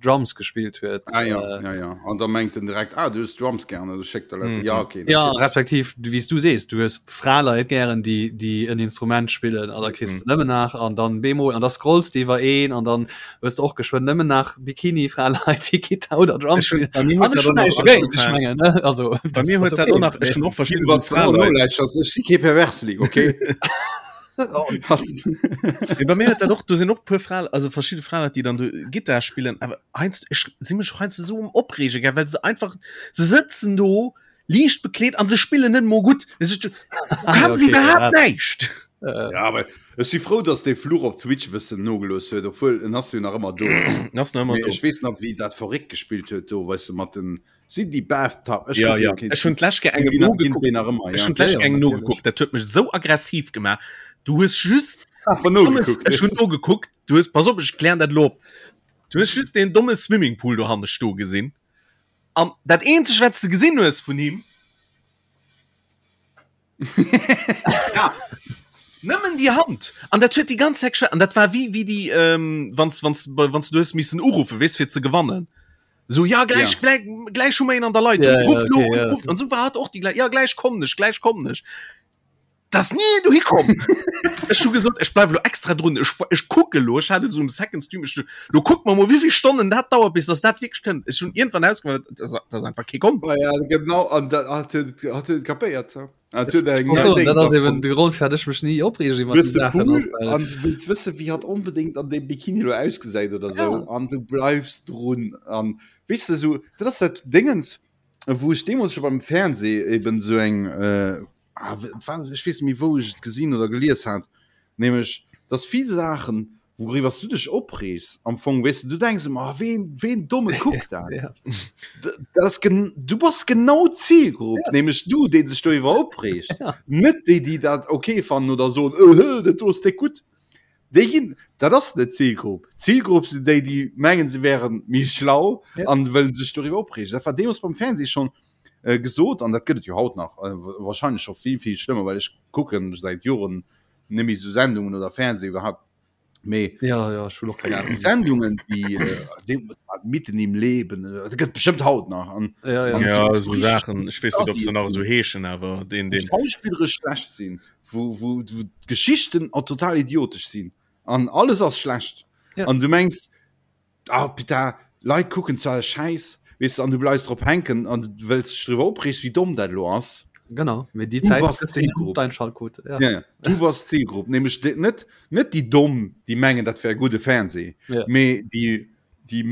Drums gespillt huet. Ah ja, ja, ja. An da mengt en direkt, ah, du hues Drums gern, also schéckt der Leit. Ja, okay. Ja, natierlech. respektiv, du, wéi s du sees, du hues Fraleit gären, déi, déi en Instrument spillen, an da kriss de nëmmen nach, an dann bemol, an da scrolls de iwwer een, an dann hues de och geschwënn nëmmen nach Bikini-Fraleit, déi Gittar oder Drums Ech hun, spillen. bei mir An huet ech dat hunn och nach näischt dogéint, ech angefaangen. mengen, ne, also, Bei das mir ass huet dat okay, och nach, ech mee. hunn och verschidden Iwwer esou Fraleit. Nolauschtert, ech si kee Perversling, okay? Mee bei mir huet dat och, do sinn och puer Fra, also verschidde Fraleit, déi dann do Gittar spillen, awer heiansdo, ech si mech och heiansdo esou um Opreege, gell, well se einfach, se sëtzen do liicht bekleet an se spillen net emol gutt. Es ist, du Ah, ja, kann se okay, iwwerhaapt ja. näischt. Äh, Ja, aber ech si frou, dass dee Fluch op Twitch e bëssen nogelooss huet, obwuel en ass jo nach ëmmer do. En ass nach ëmmer Mee do. ech weess nach, wéi dat verréckt gespillt huet do, weess de, mat den, sinn déi Bathtub, ech Ja, kucke ja. jo keen Ech hunn Twitch, d'lescht Kéier sinn engem déi nach, ginn nogekuckt. déi nach ëmmer, Ech ja? hunn ja, d'lescht ja, Kéier engem natierlech. nogekuckt, dat huet mech esou aggressiv gemaach. Du hues just Awer dommes, nogekuckt, ech hunn weess de. nogekuckt, du hues, pass op, ech klären dat elo op. Du hues just deen domme Swimmingpool dohanne sto gesinn. An dat eenzeg, wat s de gesinn hues vun him, ja, nëmmen déi Hand. An dat huet déi ganz Zäit geschwat. An dat war wéi, wéi déi, ähm, wann s, wann s, wann s du hues missen uruffen, weess, fir ze gewannen. So, ja, gläich, Ja. gläich, gläich hu mer een an der Leitung. Ja, ja, Rufft lo okay, un, ja. rufft. An sou war hat och déi gläich, ja, gläich kommen ech, gläich kommen ech. Das nie du hikom Ech hu gesot ech bleif lo extra drun ech, ech kucke lo ech hat et so um second Stream ech, lo kuck mer mol wéivill Stonnen dat dauert bis dass dat wierklech kënnt ech hunn iergendwann ausgemaach dass dass einfach kee komm Oh ja, genau, an dat hat huet hat huet kapéiert. Hat huet eng Also, Ding dat ass eben erfonnt. de Grond fir ech mech ni opreegen iwwer Hues déi de Saachen Pool ass well an du wëlls wësse wéi hat onbedéngt an deem Bikini lo ausgesäit oder sou ja. an du bleifs drun an weess de sou dat ass dat Déngens wou ech deemools scho beim Fernseh eben sou eng äh, ah, war, ech weess net méi wou ech et gesinn oder gelies hat, nämlech dass vill Saachen wouriwwer s du dech opreegs am Fong weess de du denks ëmmer ah, ween ween domme kuckt dat Ja. D- dat ass gen du bass genau d'Zilgrupp Ja. nämlech du dee sech doriwwer opreegt Ja. net déi déi dat okay fannen oder soen öhö dat do ass déck gutt déi ginn dat ass net d'Zilgrupp d'Zilgrupp sinn déi déi mengen se wären méi schlau Ja. an wëllen sech doriwwer opreegen dat war deemools beim Fernseh schonn äh, gesot an dat gëtt et jo haut nach äh, wahrscheinlech scho vill vill schlëmmer well ech kucken säit Joren net méi sou Sendungen oder Fernseh iwwerhaupt mee Ja, ja, ech hunn och keng déi Ahnung. Sendungen déi äh, déi mitten im Leben äh, dat gëtt bestimmt haut nach an Ja, ja. an ja so, so so richtig Saachen ech weess net ob se nach assi esou heeschen awer den wou den schauspillerisch schlecht sinn wou wou wou d'Geschichten auch total idiotesch sinn an alles ass schlecht Ja. an du mengs Ah putain, Leit kucken zwar e Schäiss, weess de, an du bleifs drop hänken an du wëlls dech driwwer opreegen, wéi domm dat elo ass. Genau, mee déi Du Zäit bass kriss du net d'Zilgrupp. d'Einschaltquote. Ja. Ja, ja, du bass d'Zilgrupp, nämlech déi, net, net déi Domm, déi mengen, dat wär gudde Fernseh, Ja. mee déi, déi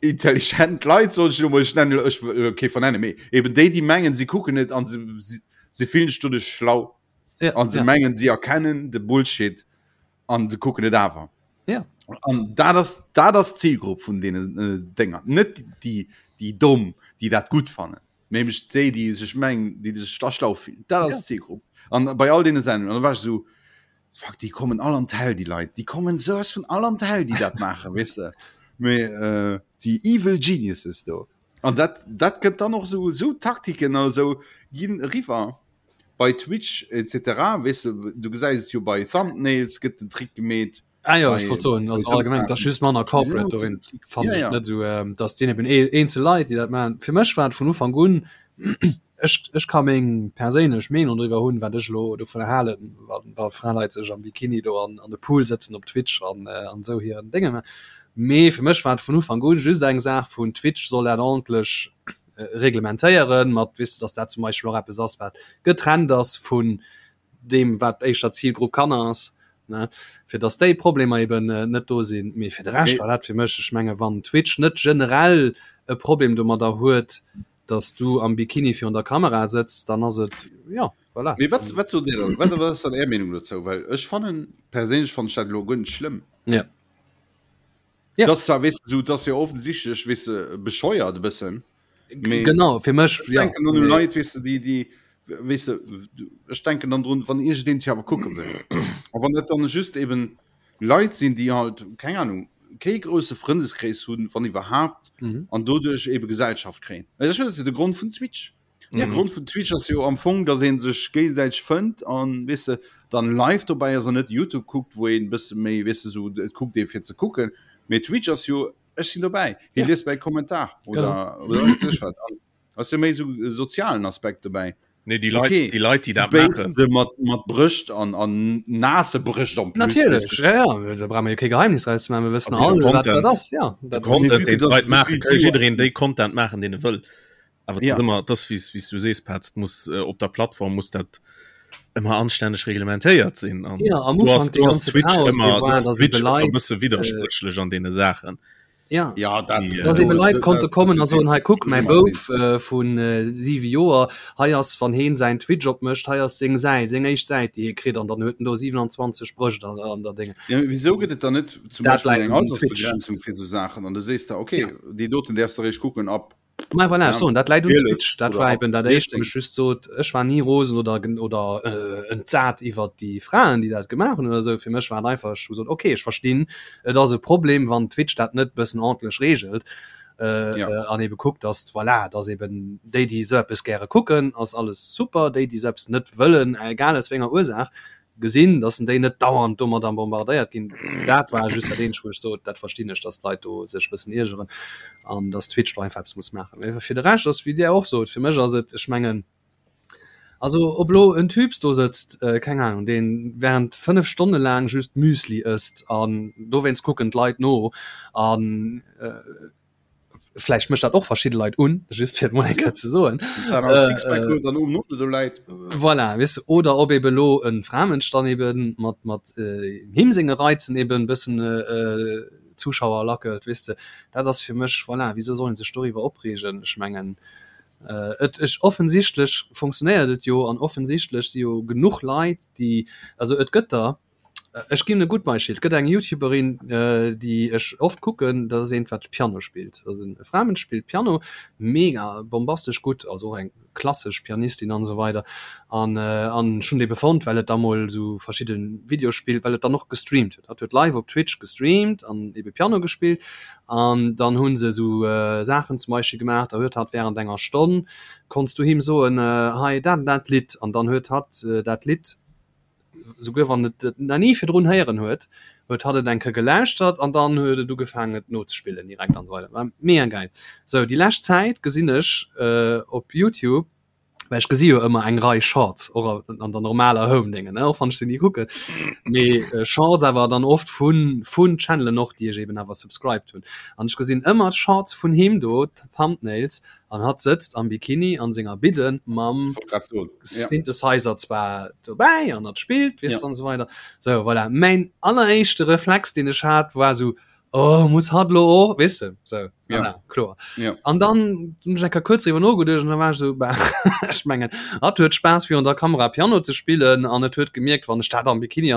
mëttelintelligent Leit, soll ech elo mol, ech nennen elo, ech wëll elo kee vernennen, mee eben déi, déi mengen, si kucken et an se, si, se fillen sech doduerch schlau Ja, an se ja. mengen, si erkennen de Bullshit an se kucken et awer. Ja. An dat ass dat ass d'Zielgrupp vun deenen äh, Dénger. Net déi déi domm, déi dat gutt fannen, nämlech déi, déi sech mengen, déi sech da schlau fillen. Dat ass Ja. d'Zielgrupp. An bei all deene Sendungen, an da war ech esou. Fuck, déi kommen all an d'Häll, déi Leit. Déi kommen souwas vun all an d'Häll, déi dat maachen, weess de. Mee äh, déi evil geniuses do. An dat, dat gëtt dann och sou, sou Taktiken a sou ginn eriwwer bei Twitch etc. Weess de, du gesäis et jo bei Thumbnails gëtt den Trick gemeet. Ah jo, ech wollt soen, also allgemeng, dat ass just manner corporate dorin, fannen ech net esou, dass sinn eben eenzel Leit, déi dat maachen. Fir mech war et vun Ufank un, ech, ech ka meng perséinlech Meenung driwwer hunn, wat ech elo dovun halen, wa, wa Fraleit sech am Bikini do an, an de Pool sëtzen op Twitch an, an esou hiren Dénge maachen. Mee fir mech war et vun Ufank un just eng Saach vun, Twitch soll dat ordentlech reglementéieren, mat, weess de, dass dat zum Beispill och eppes ass, wat getrennt ass vun deem wat éischter Zilgrupp Kanner ass, ne, fir dass déi Problemer eben net do sinn. Mee fir de Rescht war dat fir mech, ech menge wann Twitch net generell e Problem domadder huet, dass du am Bikini virun der Kamera sëtz, dann ass et, jo, voilà. Mee wat, wat sot Dir dann? Wat, wat ass dann Är Meenung dozou? Well ech fannen, perséinlech fannen ech dat elo guer net schlëmm. Ja. Ja. Das zwar, weißt du, so, das ja offensichtlich, weißt du, bescheuert ein bisschen. Mee genau fir mech ich ja, denken an Leit, weißt du, die, die, weißt du, ich denken dann drun, wann ich den Theater gucken will. Aber wann das dann just eben Leit sind, die halt, keine Ahnung, kein große Freundeskreis haben, wann überhaupt, mhm. an dadurch eben Gesellschaft kriegen. Das ist ja der Grund von Twitch. Ja. De Grond vun Twitch ass jo am Fong, dass een sech géigesäiteg fënnt an weess de dann live dobäi ass an net YouTube kuckt, wou een bësse méi weess de sou et kuckt ee fir ze kucken. Mee Twitch ass jo ech sinn dobäi, hie liest mäi Kommentar oder oder wat weess ech wat. An ass jo méi sou e sozialen Aspekt dobäi. Nee, déi Leit, okay. déi Leit, déi dat maachen. Se mat, mat Brëscht an, an naasse Brëscht am plus. Natierlech, ja, ja, da brauche mer jo kee Geheimnis draus ze maachen, mir wëssen all, wat dat ass, ja. De Content, deen d'Leit maachen, ka jiddereen déi Content maachen, deen e wëll. Awer ja. ëmmer das wie wie du sees Petz muss äh, op der Plattform muss dat ëmmer anstänneg reglementéiert sinn an ja, am du hast, du hast Twitch ëmmer Twitch e bësse widderspréchlech äh, an deene Saachen. Ja, ja dat, die, äh, eben Leit konnte kommen a soen hei kuck mäi Bouf äh, vun äh, siwe Joer hei ass wann heen säin Twitch opmécht hei ass seng Säit seng éischt Säit déi hie kritt an dann huet en do 27 Brëscht an, an der Dinge. Ja, wieso gëtt et dann net zum Dat Beispiel läit eng um Twitch. Altersbegrenzung fir sou Saachen an du sees da okay ja. déi doten däerfs du eréischt kucken ab Ma voilà, Ja, so, dat läit un 12 Twitch. Dat oder war ab eben dat éischt, wou 14. ech just sot, ech war ni rosen oder, oder äh, entsat iwwer déi Fraen, déi dat gemaach hunn oder esou. Fir mech war et einfach, ech hu gesot, okay, ech verstinn, et ass e Problem, wann Twitch dat net bëssen ordentlech reegelt äh, Ja. äh, an ebe kuckt, dass, voilà, dass eben déi, déi esou eppes gäre kucken, ass alles super, déi, déi esou eppes net wëllen, egal aus wéi enger Ursaach, gesinn, dass en déi net dauernd domadder bombardéiert ginn. Dat war just dat eenzegt, wou ech sot, dat verstinn ech, dass d'Leit do sech e bëssen iergeren an dass Twitch do einfach eppes muss maachen. Mee fir de Rescht ass, wéi Dir och sot, fir mech ass et, ech mengen, also ob elo en Typs do sëtzt, keng Ahnung, dee während 5 Stonne laang just Müsli ësst an dowéinst kucken d'Leit no an, Vläicht mécht dat och verschidde Leit un, just fir et mol eng Kéier ze soen. Voilà, weess de, oder ob ebe lo e Framënsch dann ebe mat mat him senge Reizen eben e bëssen Zuschauer lackelt, weess de. Dat ass fir mech, voilà, wisou soll ee sech doriwwer opreegen? Ech mengen, et ech offensichtlech funktionéiert et jo an offensichtlech si jo genuch Leit, déi, also et gëtt der, Ech ginn e gutt Beispill, et gëtt eng Youtuberin, déi ech oft kucken, dat ass eent wat Piano spillt, also e Framënsch spillt Piano mega bombastesch gutt, also och eng klassesch Pianistin an esou weider an an ech hunn déi befonnt, well et da mol esou verschidde Videoe spillt, well et dann och gestreamt huet, hatt huet live op Twitch gestreamt an ebe Piano gespillt an dann hu se esou Saachen zum Beispill gemaach, da huet hatt während enger Stonn konns du him soen, hei dat an dat Lidd an dann huet hatt dat Lidd souguer wann et et nach ni virdrun héieren huet, huet hatt et eng Kéier gelauschtert an dann huet et ugefaangen et nozespillen direkt an esou weider. War mega geil. Sou, déi lescht Zäit gesinn ech op Youtube, well ech gesi jo ëmmer eng Rei Shorts och an der normaler Home Déngen, ne, och wann ech se ni kucken, mee Shorts awer dann oft vun vun Channelen och, déi ech eben awer subscribed hunn. An ech gesinn ëmmer d'Shorts vun him do, d'Thumbnails, An hatt sëtzt am Bikini an senger Bidden mam Synthesizer zwar dobäi an hatt spillt, weess an esou weider. Sou, voilà. Mäin alleréischte Reflex, deen ech hat, war sou, Oh, muss hatt lo och, weess de? Sou, voilà, kloer. An dann hunn ech eng Kéier kuerz driwwer nogeduecht an da war ech sou, Bah, ech mengen, hatt huet Spaass virun der Kamera Piano ze spillen an et huet gemierkt, wann ech dat am Bikini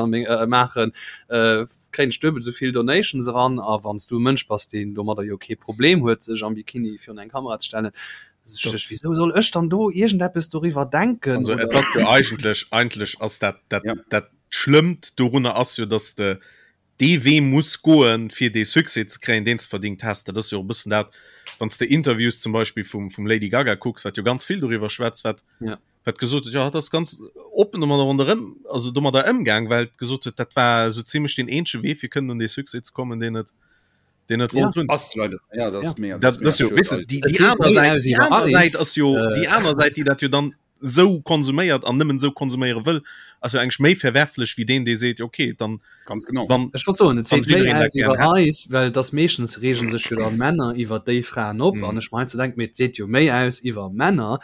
maachen, kréien ech duebel esou vill Donations eran a wann s du e Mënsch bass, deen domadder jo kee Problem huet, sech am Bikini virun eng Kamera ze stellen, wieso soll ech dann do iergendeppes doriwwer denken? Also et ass jo eigentlech, eigentlech ass dat, dat, Ja. dat. Schlëmmt dorunner ass jo, dass de dee Wee muss goen, fir dee Succès ze kréien, deen s de verdingt häss. Dat ass jo och e bëssen dat, wann s de Interviews zum Beispill vum, vum Lady Gaga kucks, wat jo ganz vill doriwwer schwätzt, wat, ja. wat gesot huet, jo, hatt ass ganz oppen domadder ronderëm, also domadder ëmgaang, well et gesot huet, dat war esou zimlech deen eenzege Wee, fir kënnen un dee Succès ze kommen, deen et, deen et ja. wollt hunn. Ass leider, ja, dat ass ja. mega, dat, dat ass jo, weess de, déi, déi aner Säit, déi aner Säit ass jo, äh, déi aner Säit, déi dat jo dann sou konsuméiert an nëmmen sou konsuméiere wëll, ass jo eigentlech méi verwerflech wéi deen, dee seet, okay, dann, Ganz genau. wann, Ech wollt soen, et wann seet méi jiddereen dat aus gären iwwer hätt. eis, well et ass meeschtens reegen sech jo dann Männer iwwer déi Fraen op Mm. an ech mer heiansdo denken, mee et seet jo méi aus iwwer Männer,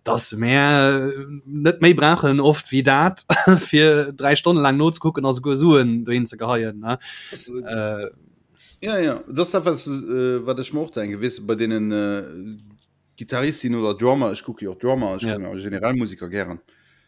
dass mär net méi brauchen oft wéi dat fir 3 Stonne laang nozekucken a souguer Suen dohin ze geheien, ne? Das, Äh, ja, ja, das dat wat, äh, wat ech mer och denken, weess de, bei deenen äh, Gittaristin oder Drummer, ech kucke jo och Drummer, ech Ja. kucken generell Musiker gären.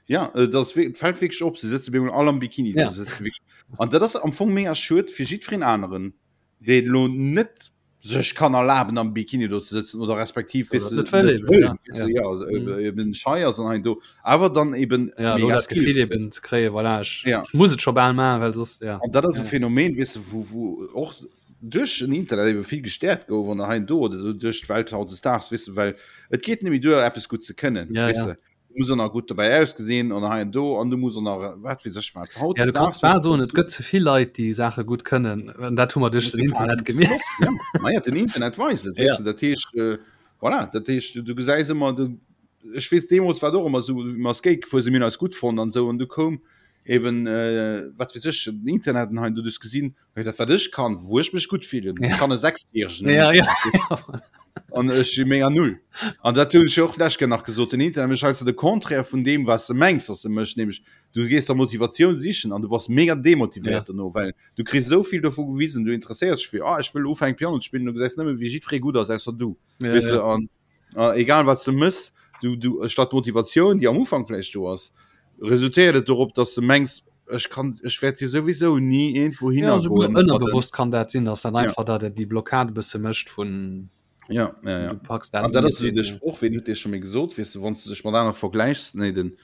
Ja, äh, das fällt wierklech op, se sëtze bemol all am Bikini Ja. do, se sëtze wierklech. An dat ass am Fong mega schued fir jiddwereen aneren, deen elo net sech kann erlaben am Bikini do ze sëtzen oder respektiv Oder weess de, net wëll net eben, wëll, ja. weess de, Ja. ja, also, Mhm. äh, eben schei ass an hei do, awer dann eben Ja, elo mega dat Gefill Skills huet. eben ze kréien, voilà, ech, Ja. ech muss et scho bal maachen, well soss, ja. An dat ass e Ja. Phänomen, weess de, wou, wou och duerch den Internet ebe vill gestäerkt gouf an hei an do oder duerch d'Welt hautdesdaags, weess de, well et geet net méi duer eppes gutt ze kënnen, Ja, weess ja. de, du muss och nach gutt dobäi ausgesinn an hei an do an du muss och nach wat weess ech wat. Ja, du kanns Hautdesdaags, bal weess de, soen, et gëtt ze vill Leit, déi Saache gutt kënnen, an dat hu mer duerch den Internet gemierkt. Ja, ma ja, den Internet weist et, weess Ja. de, dat heescht, äh, voilà, dat heescht, du, du gesäis ëmmer, du, ech weess, deemools war et och ëmmer esou, wéi mer Skate gefuer sinn, mir hunn eis gutt fonnt an esou an du koum eben, äh, wat weess ech, den Internet an hei an do, du hues gesinn, Hey, dat wat ech kann, wou ech mech gutt fillen, Ja. kann e Sechsjähregen. Ja, ja. An ech si mega null. An dat hunn ech jo och lech nach gesot, den Internet mécht heiansdo de Contraire vun deem, wat s de mengs, dass e mécht, nämlech du gees der Motivatioun sichen an du bass mega demotivéiert Ja. dono, well du kriss esou vill dovu gewisen, du interesséiers dech fir, ah, ech wëll ufänken Piano ze spillen, du gesäis nëmme wéi jiddweree gutt ass, ausser du. Ja, Weess de, ja. an äh, egal wat du mëss, du, du, statt Motivatioun, déi am Ufank vläicht do ass, resultéiert et dorop, dass du mengs, ech kann, ech wäert hier souwisou ni irgendwo Ja, hinner souguer goen mat den- ënnerbewosst kann dat sinn, dass dann Ja. einfach dat et déi Blockade e bësse mécht vun Ja, ja, ja. du packs dat An dat net ass esou de hin, ja. Sproch, ween huet dee scho méi gesot, weess de, wann s du dech mat anere vergläichs, nee, den,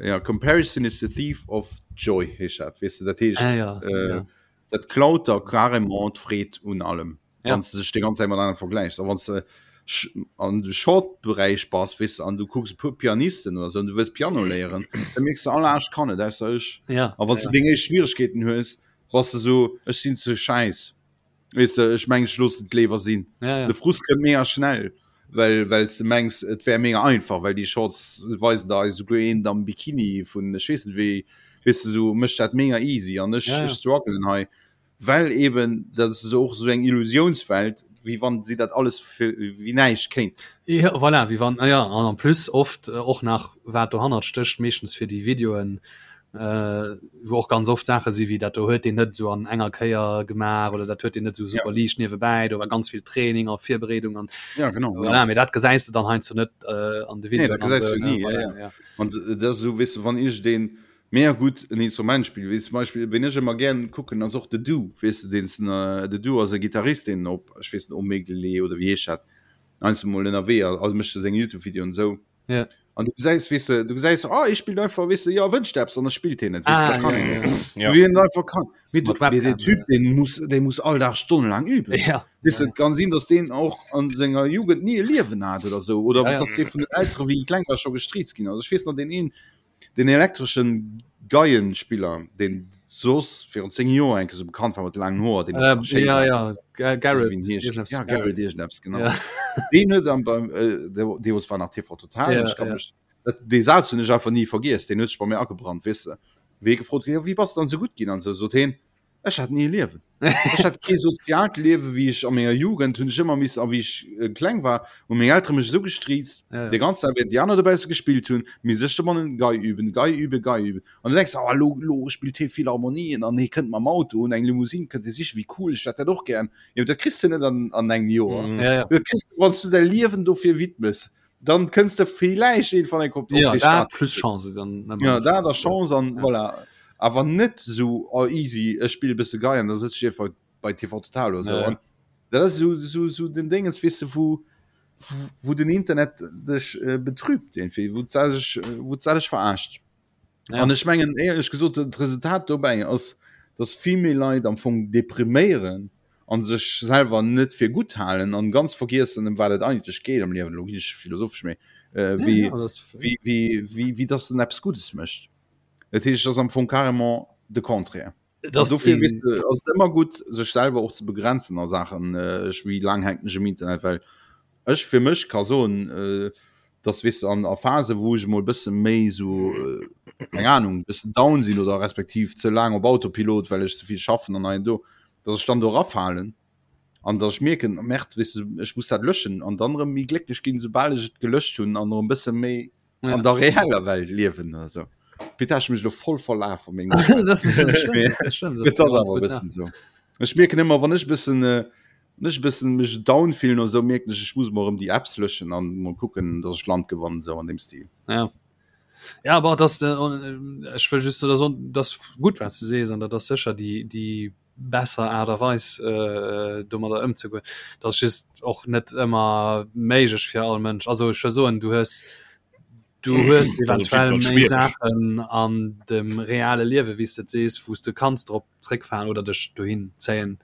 ja, Comparison is the thief of joy, heescht dat, weess de, dat heescht, Ah, ja, äh, ja. dat klaut der carrément d'Freed un allem. Ja. Wann du dech déi ganz Zäit mat anere vergläichs. A wann du an de Short-Beräich bass, weess de, an du kucks e puer Pianisten oder sou an du wëlls Piano léieren, da mierks du, all anescht kann et ausser ech. Ja. A wann du deng éischt Schwieregkeeten hues, bass du sou, ech sinn ze schäiss. Weess de, ech mengen, ech loossen et léiwer sinn. Ja, ja. De Frust kënnt mega schnell, well well s de mengs, et wär mega einfach, well déi Shorts weisen der esouguer een am Bikini vun ech weess net wéi, weess de, sou mécht dat mega easy an ech Ja, ja. ech strugglen hei. Well eben, dat ass och esou eng Illusiounswelt, wéi wann si dat alles fir wéi näischt kéint. Ja, voilà, wéi wann, ja, an en plus oft och nach wat dohannert stécht, meeschtens fir déi Videoen, wou och ganz oft Saache si wéi dat do huet deen net esou an enger Kéier gemaach oder dat huet deen net esou super liicht niewebäi, do war ganz vill Training a Virbereedung an Ja, genau, voilà, mee dat gesäis de dann heiansdo net an de Nee, dat Videoen an gesäis esou, du ne, ni, ja, voilà, ja. ja. An dat ass esou, weess de, wann iergendeen Mega gutt en Instrument spillen, wéi zum Beispill ween ech ëmmer gären kucken ass och de Du, weess de deen de Du ass e Gitarrist deen op ech weess net Omegle oder wéi heescht dat heiansdo mol ënnerwee ass, also mécht e seng Youtube Videoen esou Ja. an du gesäis weess de du gesäis oh hie spillt einfach weess de jo wënscht eppes an da spillt hien et weess de Ah, dat kann ja, een ja. Ja. wéi en einfach kann mee Mat du mee Webcam, den Typ ja. deen muss dee muss all Dag stonnelaang üben Ja. weess de et kann sinn datt deen och an senger Jugend ni e Liewen hat oder sou oder Ja, ja. datt dee vun den Eltere wéi e kleng war scho gestriizt ginn ass ech weess nach deen een Den elektreschen Geienspiller, deen soss virun 10 Joer enke sou bekannt war mat laangen Hoer, deen äh, schéin ja, war. ja, Ga- Garrett, Wien heescht? irgendeppes Ja, Garrett irgendeppes, genau. Ja. Deen huet am beim äh, de- deemools war nach TV Total, Ja, ech kann ja. mech dat dee Saz hunn ech einfach ni vergiess, deen huet sech bei mir agebrannt, weess de. Wéi e gefrot ginn, ja, wéi bass de dann sou gutt ginn an sou, sot heen, Ech hat ni e Liewen. Ech hat kee soziaalt Liewe wéi ech a menger Jugend hunn ech ëmmer missen a wéi ech äh, kleng war, hu meng Eltere mech esou gestriizt, Ja, ja. de ganzen Dag während déi aner dobausse gespillt hunn, misst ech domannen Gei üben, Gei üben, Gei üben. An du denks, oh, lo, lo spillt hie Philharmonien an hie kënnt mam Auto un eng Limousine kënnt hie sichen, wéi cool, ech hätt dat och gären. Jo, dat kriss de net an, an engem Joer. Mhm. Ja, ja. Dat kriss du, wann s du däi Liewen dofir widmes, dann kënns de villäicht irgendwann eng op ja, dee dat Status. plus Chance dann ëmmer Ja, dat a Chance, Chance an Ja. voilà. Awer net sou oh easy, ech spille bësse Gei an da sëtz ech einfach bei TV Total oder sou. Ja, ja. An dat ass sou sou sou den Déngens, weess de, wou wou den Internet dech äh, betrübt irgendwie, wou d'Sell sech wou d'Sell dech verarscht. Ja. An ech mengen éierlech gesot, d'Resultat dobäi ass, dass vill méi Leit am Fong depriméieren an sech selwer net fir gutt halen an ganz vergiessen, ëm wat et eigentlech geet am Liewen, elo ginn ech philosophesch, mee äh, wéi, ja, ja, wéi, wéi, wéi, wéi dass en eppes Guddes mécht. Dat heescht, ass am Fong carrément de Contraire. Das dofir weess de, ass et ëmmer gutt, sech selwer och ze begrenzen a Saachen, äh, ech wéi laang hänken ech um Internet, well ech fir mech ka soen, äh, dass weess de, an a Phase wou ech emol bësse méi sou äh, eng Ahnung, bëssen down sinn oder respektiv ze laang op Autopilot, well ech ze vill schaffen an hei an do, dass ech dann do erafalen an dass ech mierken, Merde, weess de, ech muss dat löschen an dann erëm méi glécklech ginn, soubal ech et gelöscht hunn an erëm bësse méi ja. an der reeller Welt liewen oder so. Bitte hast mich lo voll verlaf an so. Ech mierken ëmmer wann ech bëssen äh, nech bëssen mech down fillen oder so mierken ech ech muss mol erëm déi Apps löschen an mol kucken dass ech Land gewannen sou an dem Stil. Ja. Ja aber das äh, ech wëll just so, das gut wat ze sees an dat ass sécher déi déi besser Aart a Weis äh, domadder ëmzegoen. Dat ass just och net ëmmer méiglech fir all Mënsch. Also ech wëll soen, du hues du hues eventuell méi Saachen an dem reale Liewe wéi s de et sees, wou s de kanns drop zréckfalen oder dech dohin zéien,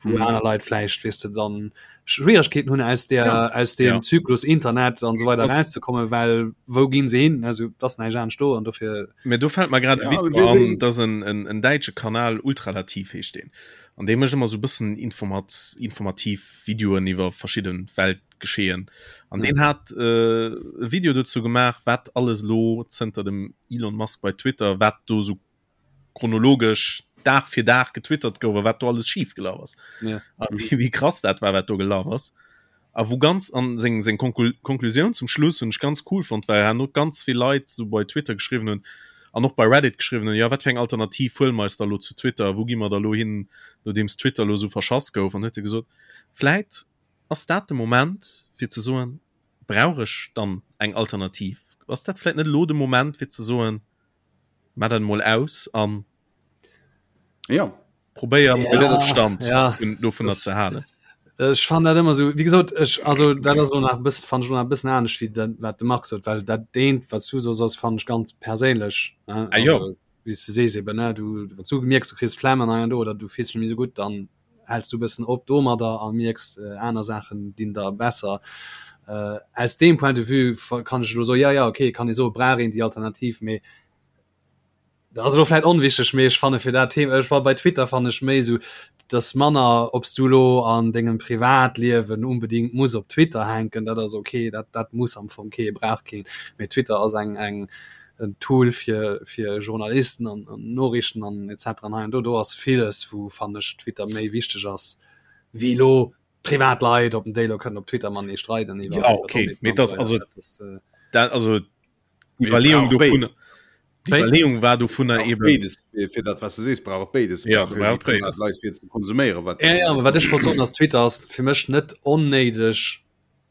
wou mhm. aner Leit vläicht weess de dann Schwierigkeeten hunn aus der ja. aus dem ja. Zyklus Internet an so weiter rauszukommen, well wou ginn se hin? Also das näischt anescht do an dofir Mee do fält mer grad e Video an, dat ass en, en, en däitsche Kanal, Ultralativ heescht deen. An dee mécht ëmmer sou bëssen informat, informativ Videoen iwwer verschidde Weltgeschehen. An deen hat äh, e Video dozou gemaach, wat alles elo zënter dem Elon Musk bei Twitter, wat do sou chronologesch Dag fir Dag getwittert gouf a wat do alles schif gelaf ass. Ja. A wéi, wéi krass dat war, wat do gelaf ass. A wou ganz an seng seng Konklusioun zum Schluss hunn ech ganz cool fonnt, well herno ganz vill Leit sou bei Twitter geschriwwen hunn an och bei Reddit geschriwwen hunn, jo wat fir eng Alternativ huele mer eis da lo zu Twitter, wou gi mer da lo hin, nodeems Twitter lo sou verschass gouf. An huet e gesot, vläit ass dat de Moment fir ze soen, brauch ech dann eng Alternativ? Ass dat vläit net elo de Moment fir ze soen, Maa dat emol aus an ja. Probéier mol ja, Ofstand ja. dovunner ze halen. Ech fan dat ëmmer so wie gesot ech also dat ass nach bis fan schon e bëssen anescht wie dat wat de Marc sot, well dat deent wat du so ass fan ech ganz perséinlech ne? Ah, also, wie du sees eben ne du wat du gemierks du kriss Flemm an do oder du fills net méi sou gutt dann häls du bëssen op domadder a mierks äh, aner Saachen dinn der besser. Äh, aus deem Point de vue kann ech lo so ja ja okay kann ee soe brauch een déi Alternativ mee dat ass elo vläit onwichteg, mee ech fanne fir dat Thema ech war bei Twitter fannen ech méi esou dass manner ob s du lo an dengem Privatliewen unbedingt muss op Twitter hänken, dat ass okay, dat dat muss am Fong kee brauch keen, mee Twitter ass eng eng en Tool fir fir Journalisten an an Noriichten an etc an hei an do do ass villes wou fannen ech Twitter méi wichteg ass wéi lo privat Leit op den déi lo kënnen op Twitter matenee streiden iwwer Ja okay, mee dat ass also dat also Iwwerleeung dovunner D'Iwwerleeung war dovunner eben béides fir dat was du sees brauch béides ja, brauch béides Leit fir ze konsuméieren wat ja, ja, wat ech wollt soen ass Twitter ass fir mech net onnéideg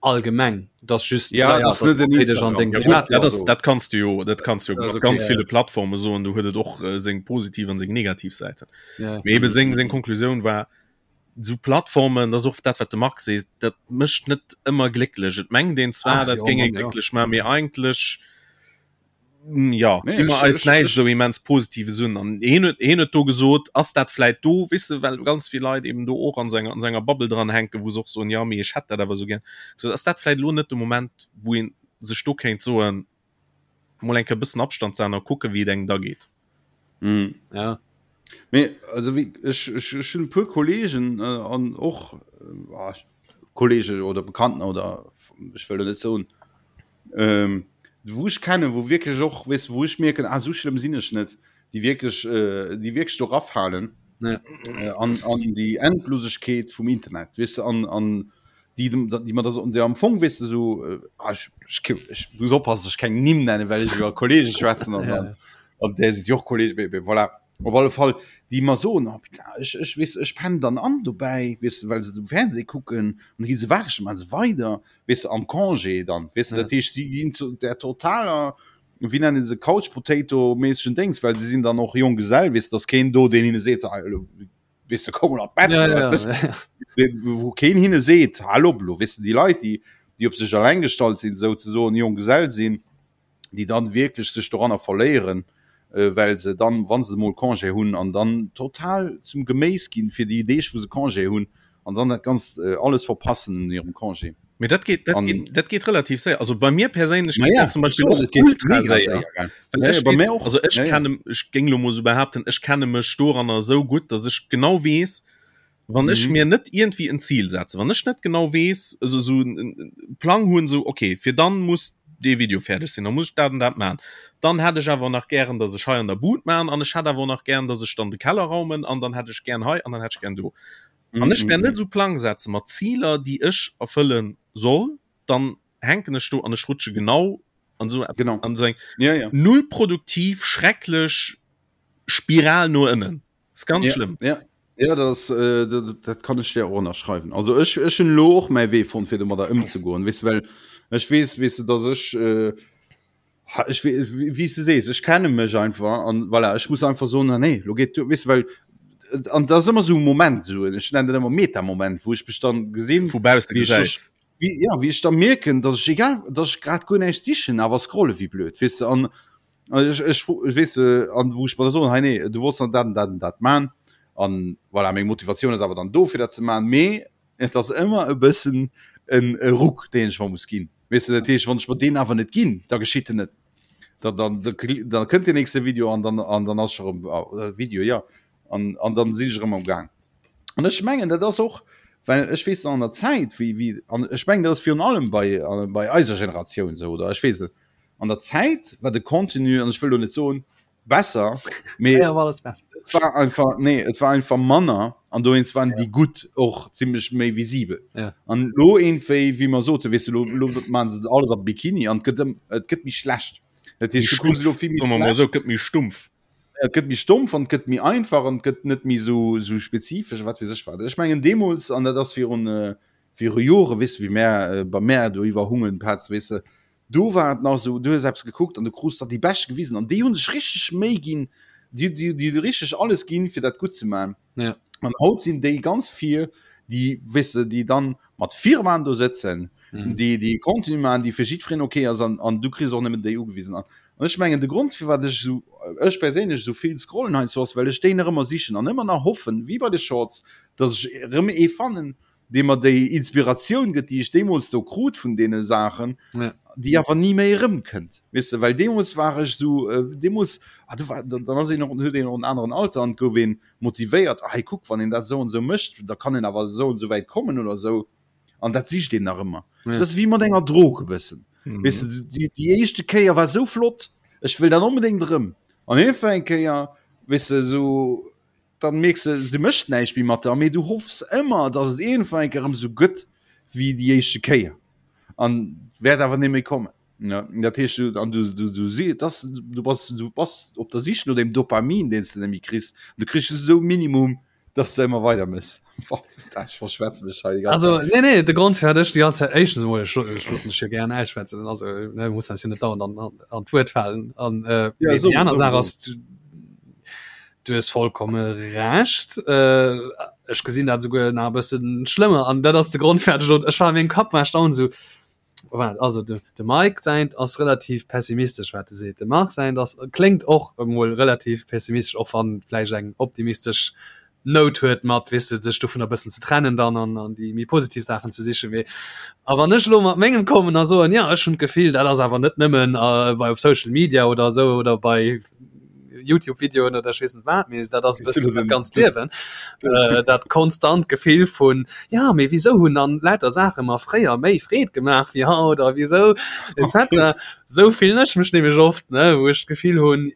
allgemeng das just ja, ja, das das an ja, gut, ja, das, dat kannst du jo dat kannst du okay, ganz ja. viele Plattformen so du huet et och äh, seng positiv an seng negativ Seiten ja. eben seng seng Konklusioun war so Plattformen das och dat wat de Max sees dat mëscht net ëmmer glécklech et mengt een zwar Ach, dat jo, géing glécklech ma mir eigentlech mm, ja nee, immer eis näischt sou immens positives un an een huet een huet do gesot ass dat vläit do weess de well ganz vill Leit eben do och an senger an senger Bubble dran hänken wou se och soen ja mee ech hätt dat awer sou gär so ass dat vläit elo net de Moment wou een sech do kéint soen mol eng Kéier bëssen Abstand setzen a kucken wéi et engem da geet. Mm. Ja. Mee also wéi ech ech ech hunn e puer Kollegen äh, an och äh, ah, Kollege oder Bekannten oder ech wëll lo net soen ähm, wou ech kennen, wou wierklech och weess wou ech mierken, ah sou schlëmm sinn ech net, déi wierklech äh, déi wierklech do rafalen Ja. äh, an an déi Endlosegkeet vum Internet, weess de an an déi déi mat der der am Fong weess de sou äh, ah, ech, ech, ech muss oppassen, dass ech keng Nimm nennen, well ech iwwer Kollege schwätzen an Ja. dann an där sinn jo och Kollege, mee, mee voilà. Op alle Fall déi mer soen, oh putain, ech, ech weess, ech pennen dann an dobäi, weess de, well se dem Fernseh kucken an da gi se waareg, maache se weider, weess de, am Congé dann, weess de, Ja. dat heescht, si ginn zu der totaler, wéi nennen se, Couch Potato méissegen Déngs, well se sinn dann och Jonggesell, weess de, dass keen do, deen hinne seet, ah, elo weess de, komm mol an d'Bett, Ja, oder ja, wat ja. wëss de, wou keen hinne seet, hal op elo, weess de, déi Leit, déi, déi op sech alleng gestallt sinn, souzesoen, Jonggesell sinn, déi dann wierklech sech doranner verléieren. well se dann, wa se mol Congé hunn, an dann total zum Geméis ginn fir déi Deeg, wou se Congé hunn, an dann dat Ganzt alles verpassen un hirem Congé. Mee dat geet, dat geet, dat geet relativ séier. Also bei mir perséinlech geet dat zum Beispill och ultra séier. Well ech bei mir och. Also ech kenne, ech géing lo mol sou behaapten, ech kenne mech doranner esou gutt, datt ech genau weess, wann ech mhm. mir net irgendwie en Ziel setze, wann ech net genau weess, also so en Plang hunn, so okay, fir dann muss dee Video fäerdeg sinn, dann muss ech dat an dat man. Dann hätt ech awer nach gären, dass ech hei an der Bud man an ech hätt awer nach gären, dass ech dann de Keller raumen an dann hätt ech gären hei an dann hätt ech gären do. Mhm. Wann ech mir net so Plang setze mat Zieler, déi ech erfëllen soll, dann hänken ech do an ech rutsche genau an so genau. an so eng ja, ja. null produktiv schrecklech Spiral no ënnen. Ist ganz ja, schlimm. Ja. Ja, das, äh, dat, dat kann ech dir och ënnerschreiwen. Also ech, ech hunn lo och mäi Wee fonnt, fir domadder ëmzegoen. Weess du, well ech weess, weess du, dass ech, äh, ha, ech wee, wéi s du sees, ech kenne mech einfach an voilà, ech muss einfach soen, ah, nee, lo geet du, weess du, well an dat ass ëmmer sou e Moment, sou, ech nennen dat ëmmer Meta-Moment, wou ech mech dann gesinn, Vu bausse wéi ech gesäis. wéi, ja, wéi ech da mierken, dass ech egal, dass ech grad guer näischt sichen, awer scrolle wéi blöd, weess du, an Ech, ech, ech weess, an wou ech mer da soen, hei nee, du wollts nach dat an dat an dat man. An voilà, meng Motivatioun ass awer dann do fir dat ze man, mee et ass ëmmer e bëssen en e Ruck, deen ech mer muss ginn. Weess de, dat heescht, wann ech mer deen awer net ginn, da geschitt en net. Da, dann, da, da kënnt deen nächste Video an dann, an dann ass ech erëm, Video, jo, an, an dann sinn ech erëm am Gaang. An ech mengen, dat ass och, well ech weess nach an der Zäit, wéi, wéi, an ech mengen, dat ass virun allem bei, bei eiser Generatioun esou, oder ech weess net, an der Zäit war de Contenu an ech wëll lo net soen besser mee ja, war alles besser. Et war einfach nee et war einfach manner an dowéinst waren ja. déi gutt och zimmlech méi visibel ja. an lo eenwéi wéi mer sote weess du lo, lo man se alles am Bikini an gëtt et gëtt méi schlecht dat heescht du kucks lo vill méi schlecht. Esou gëtt méi stumpf. Et gëtt méi stumpf an et gëtt méi einfach an et gëtt net méi sou sou spezifesch wat weess ech wat. Ech mengen deemools an dat ass virun äh, viru Jore weess du wéi mär äh, bei mär do iwwer Hungen Petz weess de Do war et nach esou, du hues eppes gekuckt an du krus der déi Bescht gewisen an déi hu sech richteg Méi ginn, déi, déi, déi hu richteg alles ginn, fir dat gutt ze maachen. Ja. An haut sinn déi ganz vir, déi, weess de, déi dann mat Firmaen do sëtzen, Mhm. déi, déi Contenu maachen, déi fir jiddwereen okay ass an, an du kriss och nëmmen déi ugewisen. An an ech mengen, de Grond, firwat ech esou, ech perséinlech esou vill scrollen heiansdo, ass, well ech déi nach ëmmer sichen an ëmmer nach hoffen, wéi bei de Shorts, dass ech erëm ee fannen, dee mer déi Inspiratioun gëtt, déi ech deemools do krut vun deene Saachen, ja. déi awer ni méi erëmkënnt. Weess de, well deemools war ech esou, äh, deemools, ah, du war, dann ass een och, huet een och en aneren Alter an gouf een motivéiert, ah, hey, kuck, wann een dat esou an esou mécht, da kann een awer esou an esou wäit kommen oder esou. An dat sicht een nach ëmmer. Ja. Dat ass wéi mat enger Drog e bëssen. Mhm. Weess de, déi, déi éischte Kéier war esou flott, ech wëll dat onbedéngt erëm. An iergendwann eng Kéier, weess de, esou, dann mierks de, se mécht näischt méi mat der, mee du hoffs ëmmer, dass et iergendwann eng Kéier erëm esou gëtt wéi déi éischte Kéier an wäert awer net méi kommen. Ja, dat heescht, du, an du, du, du, si, das, du, bass, du bass op der Sich no dem Dopamin, deen s de net méi kriss. Du kriss just esou Minimum, dass de ëmmer weider mëss. Ech verschwätze mech hei déi ganz Also Zäit. nee nee de Grond fir ech déi ganze Zäit éischtens emol ech ech loossen dech jo gären ausschwätzen also ne muss eis jo net dauernd an an an d'Wuert falen an äh, Ja, mee so, déi aner so, Saach so. ass du Du hues vollkomme Recht. Äh, ech gesinn dat souguer nach e bëssen schlëmmer an dat ass de Grond fir ech ech war a mengem Kapp war ech dauernd esou, Waart, also de, de Mike säint ass relativ pessimistesch wat e seet, de Marc säint ass kléngt och emol relativ pessimistesch, och wann vläicht eng optimistesch Nout huet mat, weess de, sech dovunner e bëssen ze trennen dann an an déi méi positiv Saachen ze sichen. Mee a wann ech elo mat mengem kommen a soen, jo ech hunn d'Gefill, dat ass awer net nëmmen bei op Social Media oder esou oder bei Youtube-Videoen oder ech weess net wat, mee dat ass e bëssen dat ganzt Liewen, äh, dat konstant Gefill vun, ja, mee wisou hunn dann lauter Saache mer fréier méi Freed gemaach wéi haut a wisou etc. Sou fillen ech mech nämlech oft, ne, wou ech d'Gefill hunn,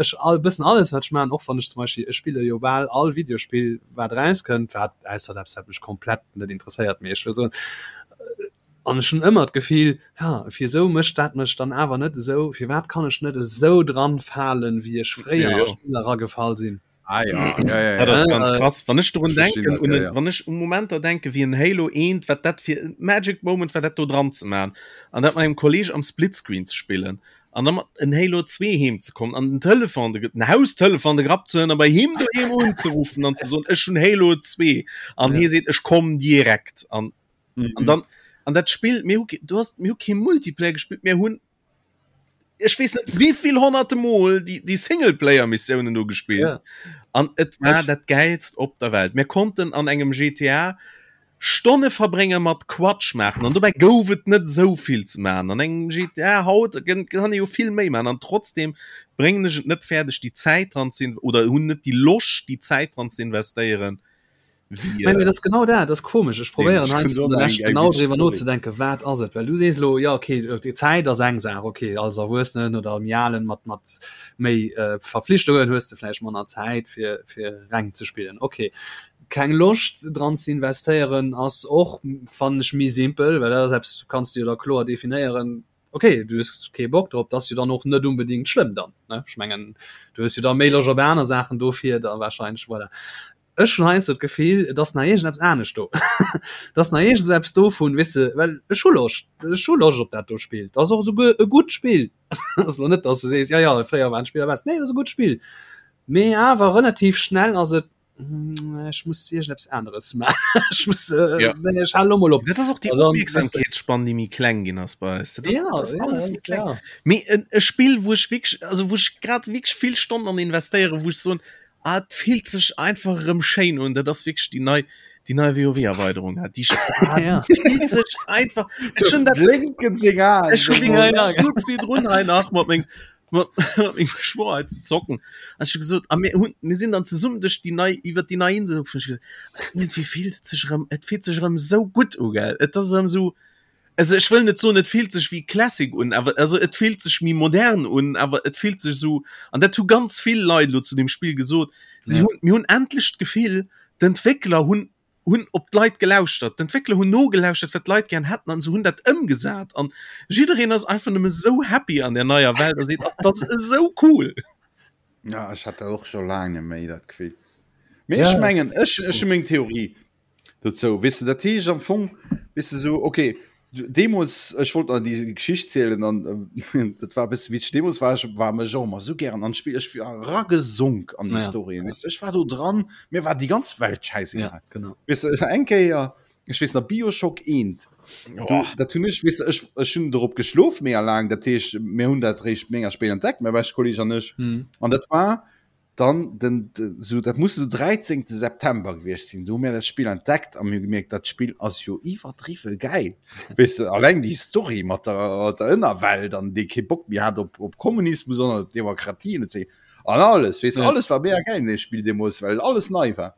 ech all bëssen alles wat ech maachen, och wann ech zum Beispill, ech spille jo bal all Videospill wat erauskënnt, wat ausser eppes wat mech komplett net interesséiert, mee ech wëll soen, An ech hunn ëmmer d'Gefill, ja, wisou mécht dat mech dann awer net esou, firwat kann ech net esou dran falen, wéi ech fréier a Spiller eragefall sinn? Ah ja, ja, ja, Dat ja. ass ganz krass. Wann ech drun Ech verstinn denken, dat, un ja, en, ja. wann ech u Momenter denken, wéi en Halo 1, wat dat fir en Magic Moment war, dat do dran ze man an dat mat engem Kolleg am Splitscreen ze spillen an da mat en Halo 2 heem ze kommen an den Telefon, de, den Haustelefon de Grapp ze huelen a bei him doheem unzeruffen an ze soen, ech hunn Halo 2 an Ja. hie seet, ech komm direkt an Mhm. An dann an dat Spill mir hu du hast mir hu kee Multiplayer gespillt, mir hunn. Ech weess net wéivill honnerte Mol déi, déi Singleplayer-Missiounen do gespillt. Ja. An et war dat Gäilst op der Welt. Mir konnten an engem GTA Stonne verbrénge mat Quatsch maachen an dobäi gouf et net esou vill ze maachen. An engem GTA haut kann ee jo vill méi maachen an trotzdem bréngen ech et net fäerdeg déi Zäit dran ze oder hunn net déi Loscht déi Zäit dran ze investéieren. Wéi, äh, das genau dat das komisch ich probieren genau drüber no zu denken wat ass et well du sees lo ja okay die Zeit ass eng Saach okay als Erwuessenen oder am Jalen mat mat méi äh, Verpflichtungen hues du vläicht manner Zäit fir fir reng ze spillen okay keng Loscht dran ze investéieren ass och fannen ech méi simpel well dat ass eppes kanns du jo da kloer definéieren okay du hues kee Bock drop dat ass jo dann och net unbedingt schlëmm dann ne ech mengen du hues jo da méi Loscht op aner Saachen dofir da wahrscheinlech voilà. Ech hunn heiansdo d'Gefill, et ass nach iergendeppes anescht do. Et ass nach iergend esou eppes do vun, weess de, well ech hu Loscht, ech hu Loscht op dat do Spill. Et ass och esouguer e gutt Spill. Et ass elo net, datt s du sees, jo, jo, fréier waren d'Spiller besser. Nee, et ass e gutt Spill. Mee awer relativ schnell ass et, ech muss iergendeppes aneres maachen. Ech muss, Ja. nee, ech halen elo mol op. Dat ass och déi An dann, weess de. Opmierksamkeetsspann, déi méi kleng ginn ass bei eis. Dat ass, Ja, dat ass ja, alles méi ass, kleng. ja. Mee en e Spill, wou ech wierklech, also wou ech grad wierklech vill Stonnen an investéieren, wou ech soen, Ah, et fillt sech einfach erëm schéin un. Dat ass wierklech déi nei, déi nei WoW-Erweiderung. Ah, déi ah, Ja. fillt sech einfach. Ech hunn dat Blinken seng Aen. Ech hunn Ja, wierklech ja. ech souz virdrun hei nach mat meng mat mat mengem Schwoer hei ze zocken. An ech hu gesot, a mir hunn mir sinn dann zesummen duerch déi nei iwwer déi nei Insel gefuer. Ech hu gesot, iergendwéi fillt et sech erëm et fillt sech erëm esou gutt u, gell. Et ass erëm esou Also ech wëll net soen et fillt sech wéi Classic un, awer also et fillt sech méi modern un, awer et fillt sech esou an dat hu ganz vill Leit elo zu deem Spill gesot, si Ja. hunn mir hunn endlech d'Gefill d'Entwéckler hunn hunn op d'Leit gelauschtert, d'Entwéckler hunn nogelauschtert wat d'Leit gären hätten an se hunn dat ëmgesat an jiddereen ass einfach nëmme sou happy an där neier Welt a seet, dat ass esou cool. Ja ech hat dat och scho laang net méi dat Gefill. Mee Ja, ech mengen dat ech ech hu meng Theorie. Dozou, weess de, dat heescht am Fong, weess de, sou, okay, deemools, ech wollt nach déi Geschicht zielen an dat war e bësse witzeg, deemools war ech, war mech och ëmmer sou gären an d'Spill, ech war eragesonk an déi Ja. Storyen, weess de, ech war do dran, mir war déi ganz Welt schäisegal. Ja, genau. Weess de, eng Kéier, ech weess nach, Bioshock 1, do, dat hunn ech, weess de, ech, ech hunn dorop geschlof mega laang, dat heescht, mir hunn dat réischt mega spéit entdeckt, mäi beschte Kolleg an ech, Mhm. an dat war, dann den so dat muss so 13. September gewiescht sinn do hu mir dat Spill entdeckt a mir gemierkt dat Spill ass jo iwwerdriwwe gäil weess de alleng déi Story mat der mat der Ënnerwelt an dee kee Bock méi hat op op Kommunismus an op Demokratie an etc an alles weess de Ja. alles war mega gäil an deem Spill deemools well alles nei war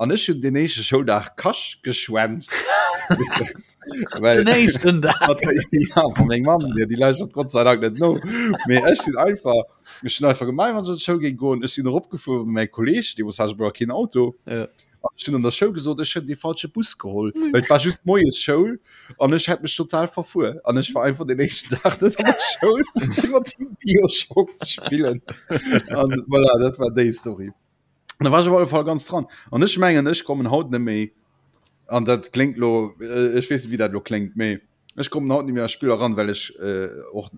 An ech hunn den éischte Schouldag Kasch geschwänzt. Well, den éischten Dag. ja, vu meng Mamm, déi, déi lauschtert Gott sei Dank net no. Mee ech sinn einfach, ech hunn einfach gemaach, wann ech an d'Schoul géing goen. Ech sinn eropgefuer mat mäi Kolleg, deemools hat ech awer keen Auto. Ja. An ech hunn an der Schoul gesot, ech hunn dee falsche Bus geholl, well et war just moies Schoul an ech hätt mech total verfuer. An ech war einfach den éischten Dag net an der Schoul, fir mat him Bioshock ze spillen. An voilà, dat war déi Story. Da war ech op alle Fall ganz dran. An ech mengen, ech kommen haut net méi, an dat kléngt lo, äh, ech weess net, wéi dat lo kléngt, mee ech kommen haut net méi a Spiller ran, well ech äh, och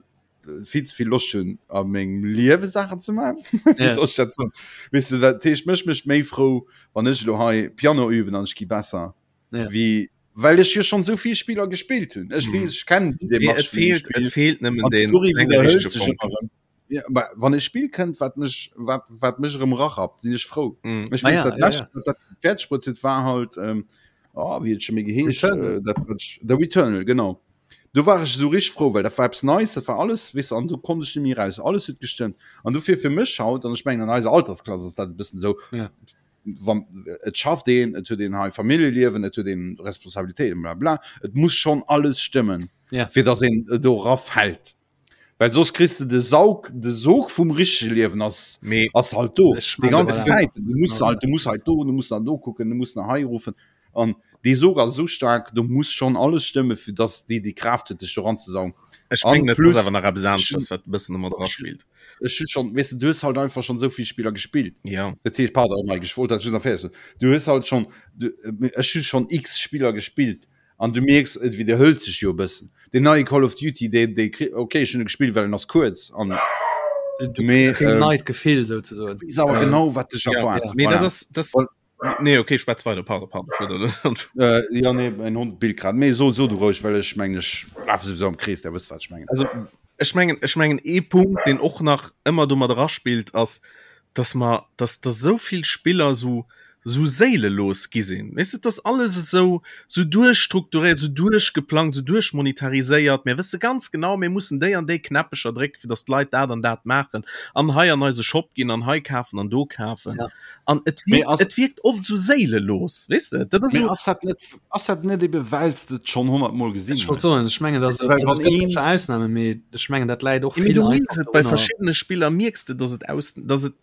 vill ze vill Loscht hunn, a mengem Liewe Saachen ze maachen. Wéi Ja. soll ech dat soen? Weess de, dat heescht, mech mécht méi frou, wann ech elo hei Piano üben an ech gi besser, Ja. wéi well ech jo schonn esou vill Spiller gespillt hunn. Ech Mhm. weess, ech kennen déi Mee Demarche et vun deem feelt, et Spill. feelt nëmmen An den d'Story enge widderhëlt richtege sech Fonken. ëmmer erëm. Ja, aber wann e Spiel kënnt, wat mech wat, wat mech erëm rachappt, sinn ech frou. Mm. Ech Ah weess ja, dat ja, lescht, ja. wat dat fäerdeg bruet huet, war halt ähm, oh, wéi huet scho méi geheescht Returnal. äh, dat, wat ech, The Returnal, genau. Do war ech esou richteg frou, well dat war eppes Neies, dat war alles, weess de, an do konnt ech net méi raus. Alles huet gestëmmt. An dofir fir mech haut, an ech mengen an eiser Altersklass ass dat e bëssen esou, Ja. wann et schafft een, et huet een hei Familljeliewen, et huet een Responsabilitéiten, bla bla, et muss schonn alles stëmmen, Ja. fir datt een do erafält. Well soss kriss de de Saug, de Sog vum richtege Liewen ass, Mee ass halt do. Ech Déi meine, ganze voilà. Zäit. Du muss Genau. halt, du muss halt do, du muss nach do kucken, du muss nach hei ruffen. An dee Sog ass esou staark, do muss schonn alles stëmme, fir dass déi déi Kraaft huet, dech do ranzesaugen. ech An mengen, et ass plus, awer nach eppes ech aneschters, wat e bëssen domat eraspillt. ech hu schonn, weess de, du hues halt einfach schonn esou vill Spiller gespillt. Ja. Dat heescht, pardon, Mike, ech wollt dat just nach fäerdeg soen. Du hues halt schonn, du, ech hu schonn x Spiller gespillt. An du mierks, et widderhëlt sech jo e bëssen. Deen neie Call of Duty, dee, dee kri-, ok, ech hunn e gespillt, well en ass kuerz an. Du Mee, kriss keen ähm, neit Gefill souzesoen. weess awer Ähm, genau, wat dech ja, erwaart. mee dat Voilà. ass, das, Well, nee, okay, schwätz weider, pardon, pardon, ech wollt dat net. äh, ja, nee, mäin Hond billt grad. Mee so, so du roueg, well ech mengen, ech lafe souwisou am Krees, der wësst, wat ech mengen. Also. Ech mengen, ech mengen ee Punkt, deen och nach ëmmer do mat eraspillt, ass, dass mer, dass dass esou vill Spiller esou esou séilelos gi sinn. Weess de, et ass alles esou esou duerchstrukturéiert, esou duerchgeplangt, esou duerchmonetariséiert. Mir wësse ganz genau, mir mussen déi an déi Knäppecher drécken, fir dass d'Leit dat an dat maachen an hei an eise Shop ginn an hei kafen an do kafen. Ja. An et Mee wierkt, ass, et wierkt oft esou séilelos, weess de. Dat ass mee esou. ass dat net, ass dat net ebe well s de et schonn honnertmol gesinn Ech wollt hues? soen, ech mengen, dass Well also wann et gëtt een, sécher Ausnamen, mee ech mengen, dat läit och Ja, mee vill du einfach mierks et bei dorunner. verschiddene Spiller mierks de, dass et aus, dass et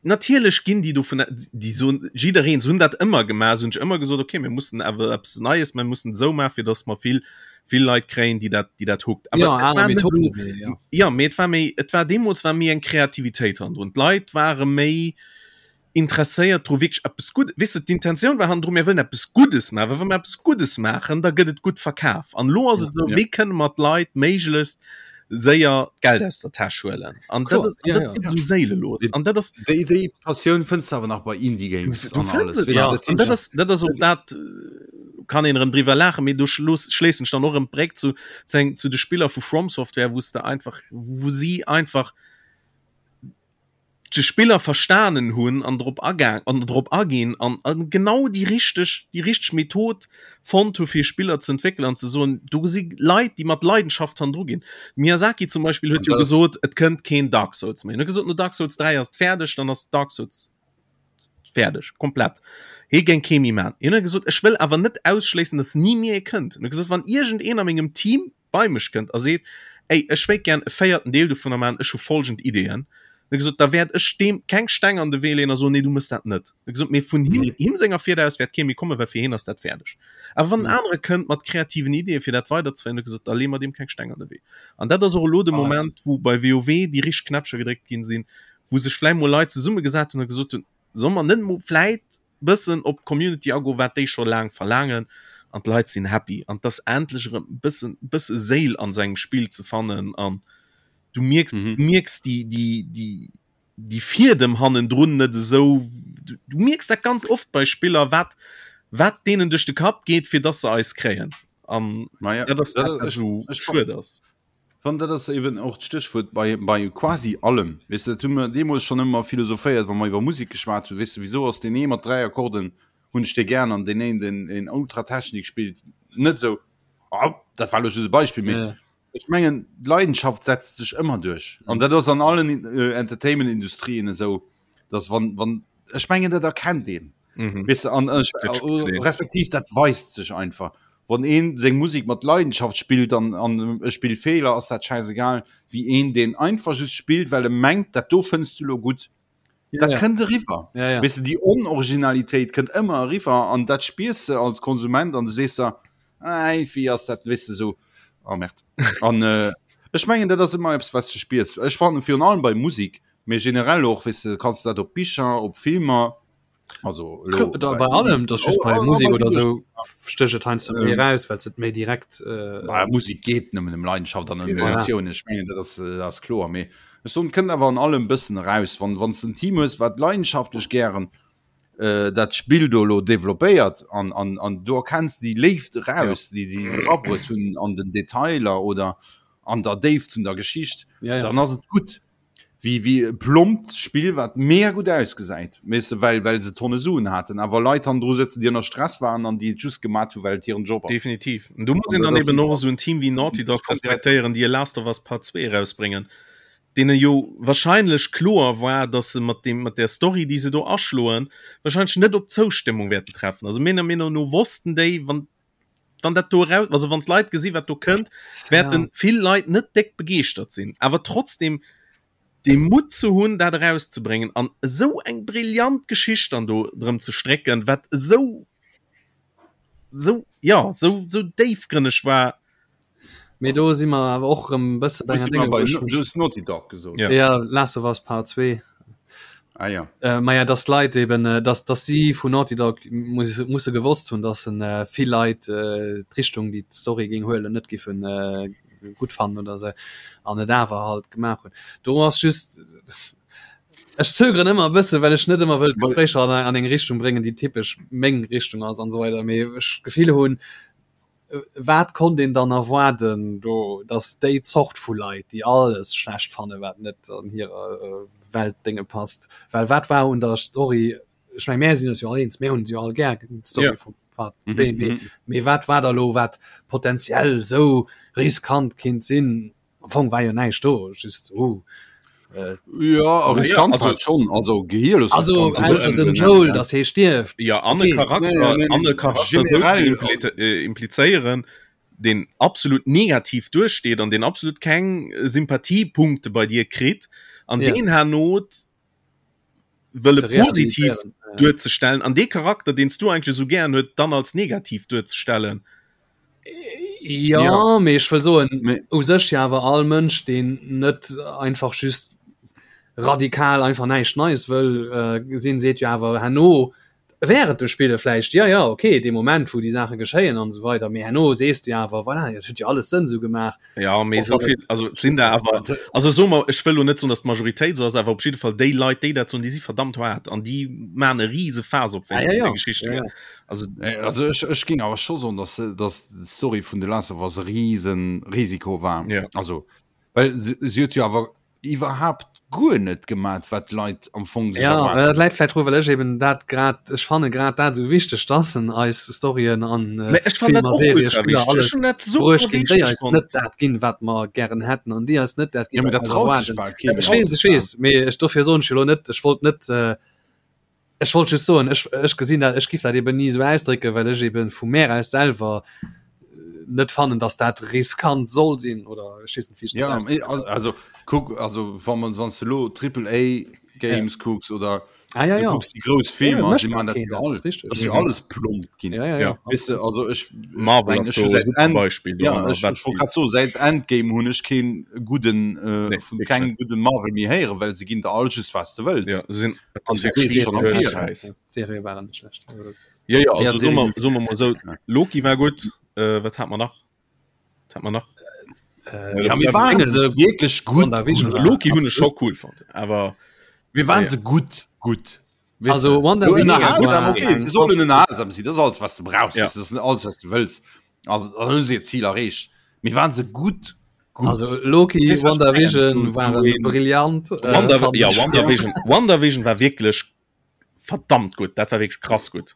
natierlech ginn déi dovun, déi soen, jiddereen, se hunn dat ëmmer gemaach, se hunn sech ëmmer gesot, okay, mir mussen awer eppes Neies, mir mussen esou maachen, fir dass mer vill, vill Leit kréien, déi dat, déi dat hookt. Awer Ja, et aner war net Methoden, esou, mee ja. ja, mee et war méi, et war deemools war méi eng Kreativitéit hannendrun. D'Leit ware méi interesséiert dru wierklech eppes Guddes, weess de, d'Intentioun war hannendru, mir wëllen eppes Guddes maachen, well wa mer eppes Guddes maachen, da gëtt et gutt verkaf. An elo ass Ja. et esou, Ja. wéi kënne mer d'Leit méiglechst séier d'Geld aus der Täsch huelen? An dat Kloer, ass, an ja, dat ja. gëtt esou séilelos. An dat ass, Déi, déi Passioun fënns de awer nach bei Indie Games du an fënns alles, et weess de, nach. dat An dat heescht, ass, dat ass och dat, kann een erëm driwwer laachen, mee do schloos, schléissen ech dann och erëm d'Bréck zu, zu eng, zu de Spiller vu From Software, wou s de einfach, wou si einfach, de Spiller verstanen hunn an drop agaang an drop aginn an an genau déi richteg déi richteg Method fonnt hu fir Spiller ze entwéckelen an ze soen, do si Leit déi mat Leidenschaft hannendru ginn. Miyazaki zum Beispill huet An jo dat ass- gesot, et kënnt keen Dark Souls méi. En huet gesot, no Dark Souls 3 ass et fäerdeg, dann ass Dark Souls fäerdeg, komplett. Hie géing kee méi man. Hien huet gesot, ech wëll awer net ausschléissen, datt ni méi ee kënnt. En huet gesot, wann iergendeen a mengem Team bei mech kënnt a seet, Ey, ech wéilt gären e véierten Deel dovunner maachen, ech hu folgend Ideeën, huet gesot, da wäert ech deem keng Steng an de Wee leeën a soen, Nee, du méchs dat net. Huet gesot, mee vun him, him senger Fieder aus wäert kee méi kommen, well fir hien ass dat fäerdeg. Awer wann en anere kënnt mat kreativen Ideeën, fir dat weiderzeféieren, huet gesot, da leeë mer deem keng Steng an de Wee. An dat ass och elo de Moment, wou bei WoW déi richteg Knäppcher gedréckt ginn sinn, wou sech vläicht mol Leit zesummegesat hunn a gesot hunn, Solle mer net mol vläicht bëssen op d'Community agoen, wat déi scho laang verlaangen an d'Leit sinn happy an dass endlech erëm bëssen bësse Séil an sou engem Spill ze fannen an du mierks mm -hmm. mierks déi déi déi déi Fiedem hannendrun net esou du, du mierks dat ganz oft bei Spiller wat wat deenen duerch de Kapp geet fir dass se eis kréien an ja, dat ass dat, dat, dat, ech, schued ass. Wann dat ass eben och d'Stéchwuert bei, bei quasi allem. Weess de, dat hu mer deemools schonn ëmmer philosophéiert, wa mer iwwer Musek geschwat hunn. Weess de, wisou ass deen ee mat 3 Akkorden hunn ech dee gären an deen een, deen een Ultratechnik spillt, net esou. Oh, dat war elo just e Beispill, mee Ja. ech mengen, d'Leidenschaft setzt sech ëmmer duerch. An dat ass an allen Entertainment-Industrien esou, dass wann, wann, ech mengen, dat erkennt een. Mhm. Weißt du, an, ech, Dat spillt een. respektiv dat weist sech einfach. Wann een seng Musik mat Leidenschaft spillt an, an e spillt Feeler, ass dat scheißegal, wéi een deen einfach just spillt, well e mengt, dat do fënns du lo gutt. Ja, Dat ja. kënnt eriwwer. Ja, ja. Weißt du, déi Onoriginalitéit kënnt ëmmer eriwwer an dat spiers de als Konsument an du sees der, Ei, wéi ass dat, weißt du, so, oh merde. An äh, ech mengen, dat ass ëmmer eppes, was du spiers. Ech fannen virun allem bei Musik, mee generell och, weißt du, kanns du dat op Bicher, op Filmer, also lo, da, bei allem das just bei Musik oder so stecht et heiansdo méi raus well et méi direkt äh, bei Musik geht nëmmen em Leidenschaft an Emotionen ech mengen dat ass äh, ass kloer mee ech soen kënnt awer an allem bëssen raus wann wann en Team hues wat leidenschaftlech gären äh, dat Spill do lo développéiert an an an du erkenns déi Léift raus ja. déi déi se abruet hunn an den Detailer oder an der Déift vun der Geschicht ja, ja. dann ass et gutt Wéi wéi e plompt Spill wat mega gutt ausgesäit, weess de, well well se Tonne Suen haten, awer Leit hannendru sëtzen, déi ënner Stress waren an déi et just gemat hu well et hiren Job ass. Definitiv. An do muss An een dat dann ass eben och esou en Team wéi Naughty Dog respektéieren, déi e Last of Us Part 2 erausbréngen, deene jo wahrscheinlech kloer war, datt se mat deem mat där Story, déi se do aschloen, wahrscheinlech net op Zoustëmmung wäerten treffen. Also menger Meenung no wossten déi, wann wann dat do raus, also wann d'Leit gesi wat do kënnt, wäerten ja. vill Leit net déck begeeschtert sinn. Awer trotzdem de Mut ze hunn, dat erauszebréngen an esou eng brillant Geschicht dann do drëm ze strécken, wat esou sou ja sou sou déifgrënneg war. Mee do si mer awer och erëm bësse bei enger Dénge, wou ech mech. Just Naughty Dog gesot. Ja, ja Last of Us Part 2. Ah, ja. Äh, ma ja, dass d'Leit eben, äh, dass, dass si vun Naughty Dog muss, musse gewosst hunn, dass en äh, vill Leit äh, d'Richtung, déi d'Story géing huelen, net giffen äh, gutt fannen oder se an et awer halt gemaach hunn. Do ass just Ech zögeren ëmmer e bësse, well ech net ëmmer wëll d'Gespréicher an, an eng Richtung bréngen, déi typesch meng Richtung ass an esou weider. Mee ech d'Gefill hunn. wat konnt een dann erwaarden do, datt déi Zort vu Leit, déi alles schlecht fannen, wat net an hirer Weltdénge passt, well wat war un der Story, ech meng mär sinn eis jo all eens, mär hunn se jo all gär, d'Story vum Part 2, mee mee wat war da lo wat potenziell esou riskant kinnt sinn? Am Fong war jo näischt do, just oh. Äh, ja riskant also, schon also gehirlos also, also den Joel das he stierft ja an okay. Charakter, nee, nee, nee, Charakter äh, implizéieren den absolut negativ durchsteht an den absolut keng Sympathiepunkte bei dir kritt an ja. den Herr Not wëlle positiv duerzestellen an dee Charakter deen s du eigentlech esou gären huet dann als negativ duerzestellen. Ja, ja. mee ech wëll soen u sech jo awer all Mënsch deen net einfach just radikal einfach näischt Neies wëll äh, sinn, seet jo awer herno Während dem Spille vläicht, jo, jo, okay, dee Moment, wou déi Saache geschéien an esou weider, mee herno sees du jo awer, voilà, dat huet jo alles Sënn esou gemaach. Ja, mee esou vill, also et sinn der awer, also soe mer, ech wëll lo net soen, datt d'Majoritéit esou ass, awer op jidde Fall déi Leit, déi dat soen, déi si verdammt haart an déi maachen e rise Faass op, wéinst deene Geschichten. Ja, ja. Also, also ech, ech géing awer scho soen, datt, datt d'Story vun The Last of Us e rise Risiko war. Ja. Also, well se, se huet jo awer iwwerhaapt guer net gemat wat d'Leit am Fong sech ja, erwaart dat läit vläit dru well ech eben dat grad ech fanne grad dat esou wichteg dass en eis Storyen an äh, ech fan dat Filmer, och Serien, ultra Spiller wichteg. Ech alles hunn dat super bruecht ginn déi wichteg eis fonnt. net dat ginn wat mer gären hätten an déi eis net dat Ja, ginn mee wat dat mer traut sech erwaarden. bal kee Ech méi weess, ech weess, mee ech dofir soen ech jo lo net ech wollt net äh, Ech wollt just soen, ech, ech gesinn dat, ech giff dat eben ni esou ausdrécken, well ech eben vu mär aus selwer net fannen, dass dat riskant soll sinn oder ech weess net, wéi ech dat Ja, ausdrécken soll. also kuck, also wa man wann s de lo Triple A Games kucks oder Ah, ja, du ja. kucks déi grouss Ja, Filmer, mécht si dat man dat keen, jo dat all, ass richteg. dat ass jo alles plomp ginn. Ja, ja, Ja. ja. Weess de, also ech, ech Marvel meng, ass ech do hu e säit super End, Beispill ja, doranner, ech, wat ech wollt déi grad soen, säit Endgame hunn ech keen gudden, äh, Nee, vun wierklech kengem net. gudden Marvel méi héieren, well se ginn der all just wat s de wëlls. Ja, se sinn An du weess schonn am Virfeld. Serie waren net schlecht. Ja, ja, Ja, also soe mer, Serie soe mer mol esou, Loki war gutt, äh, wat hat mer nach? Wat hat mer nach? Äh, Ja, mir waren se wierklech gutt. WandaVision gutt. war Loki hunn ech scho cool fonnt, awer Mir waren Ja. se gutt, gutt. Weißt Also du? WandaVision Lo ënnerhalsam, war okay, eng se sollen ënnerhalsam sinn, dat ass alles, was du brauchst, Ja. das ist alles, was du wëlls. Also, dann hunn se ihr Ziel erreecht. Mir waren se gutt, gutt. Also Loki, Weess, was ich WandaVision mengen? waren So een- brillant. Äh, Wanda, fand ja, ich. WandaVision, WandaVision war wierklech verdammt gutt, dat war wierklech krass gutt.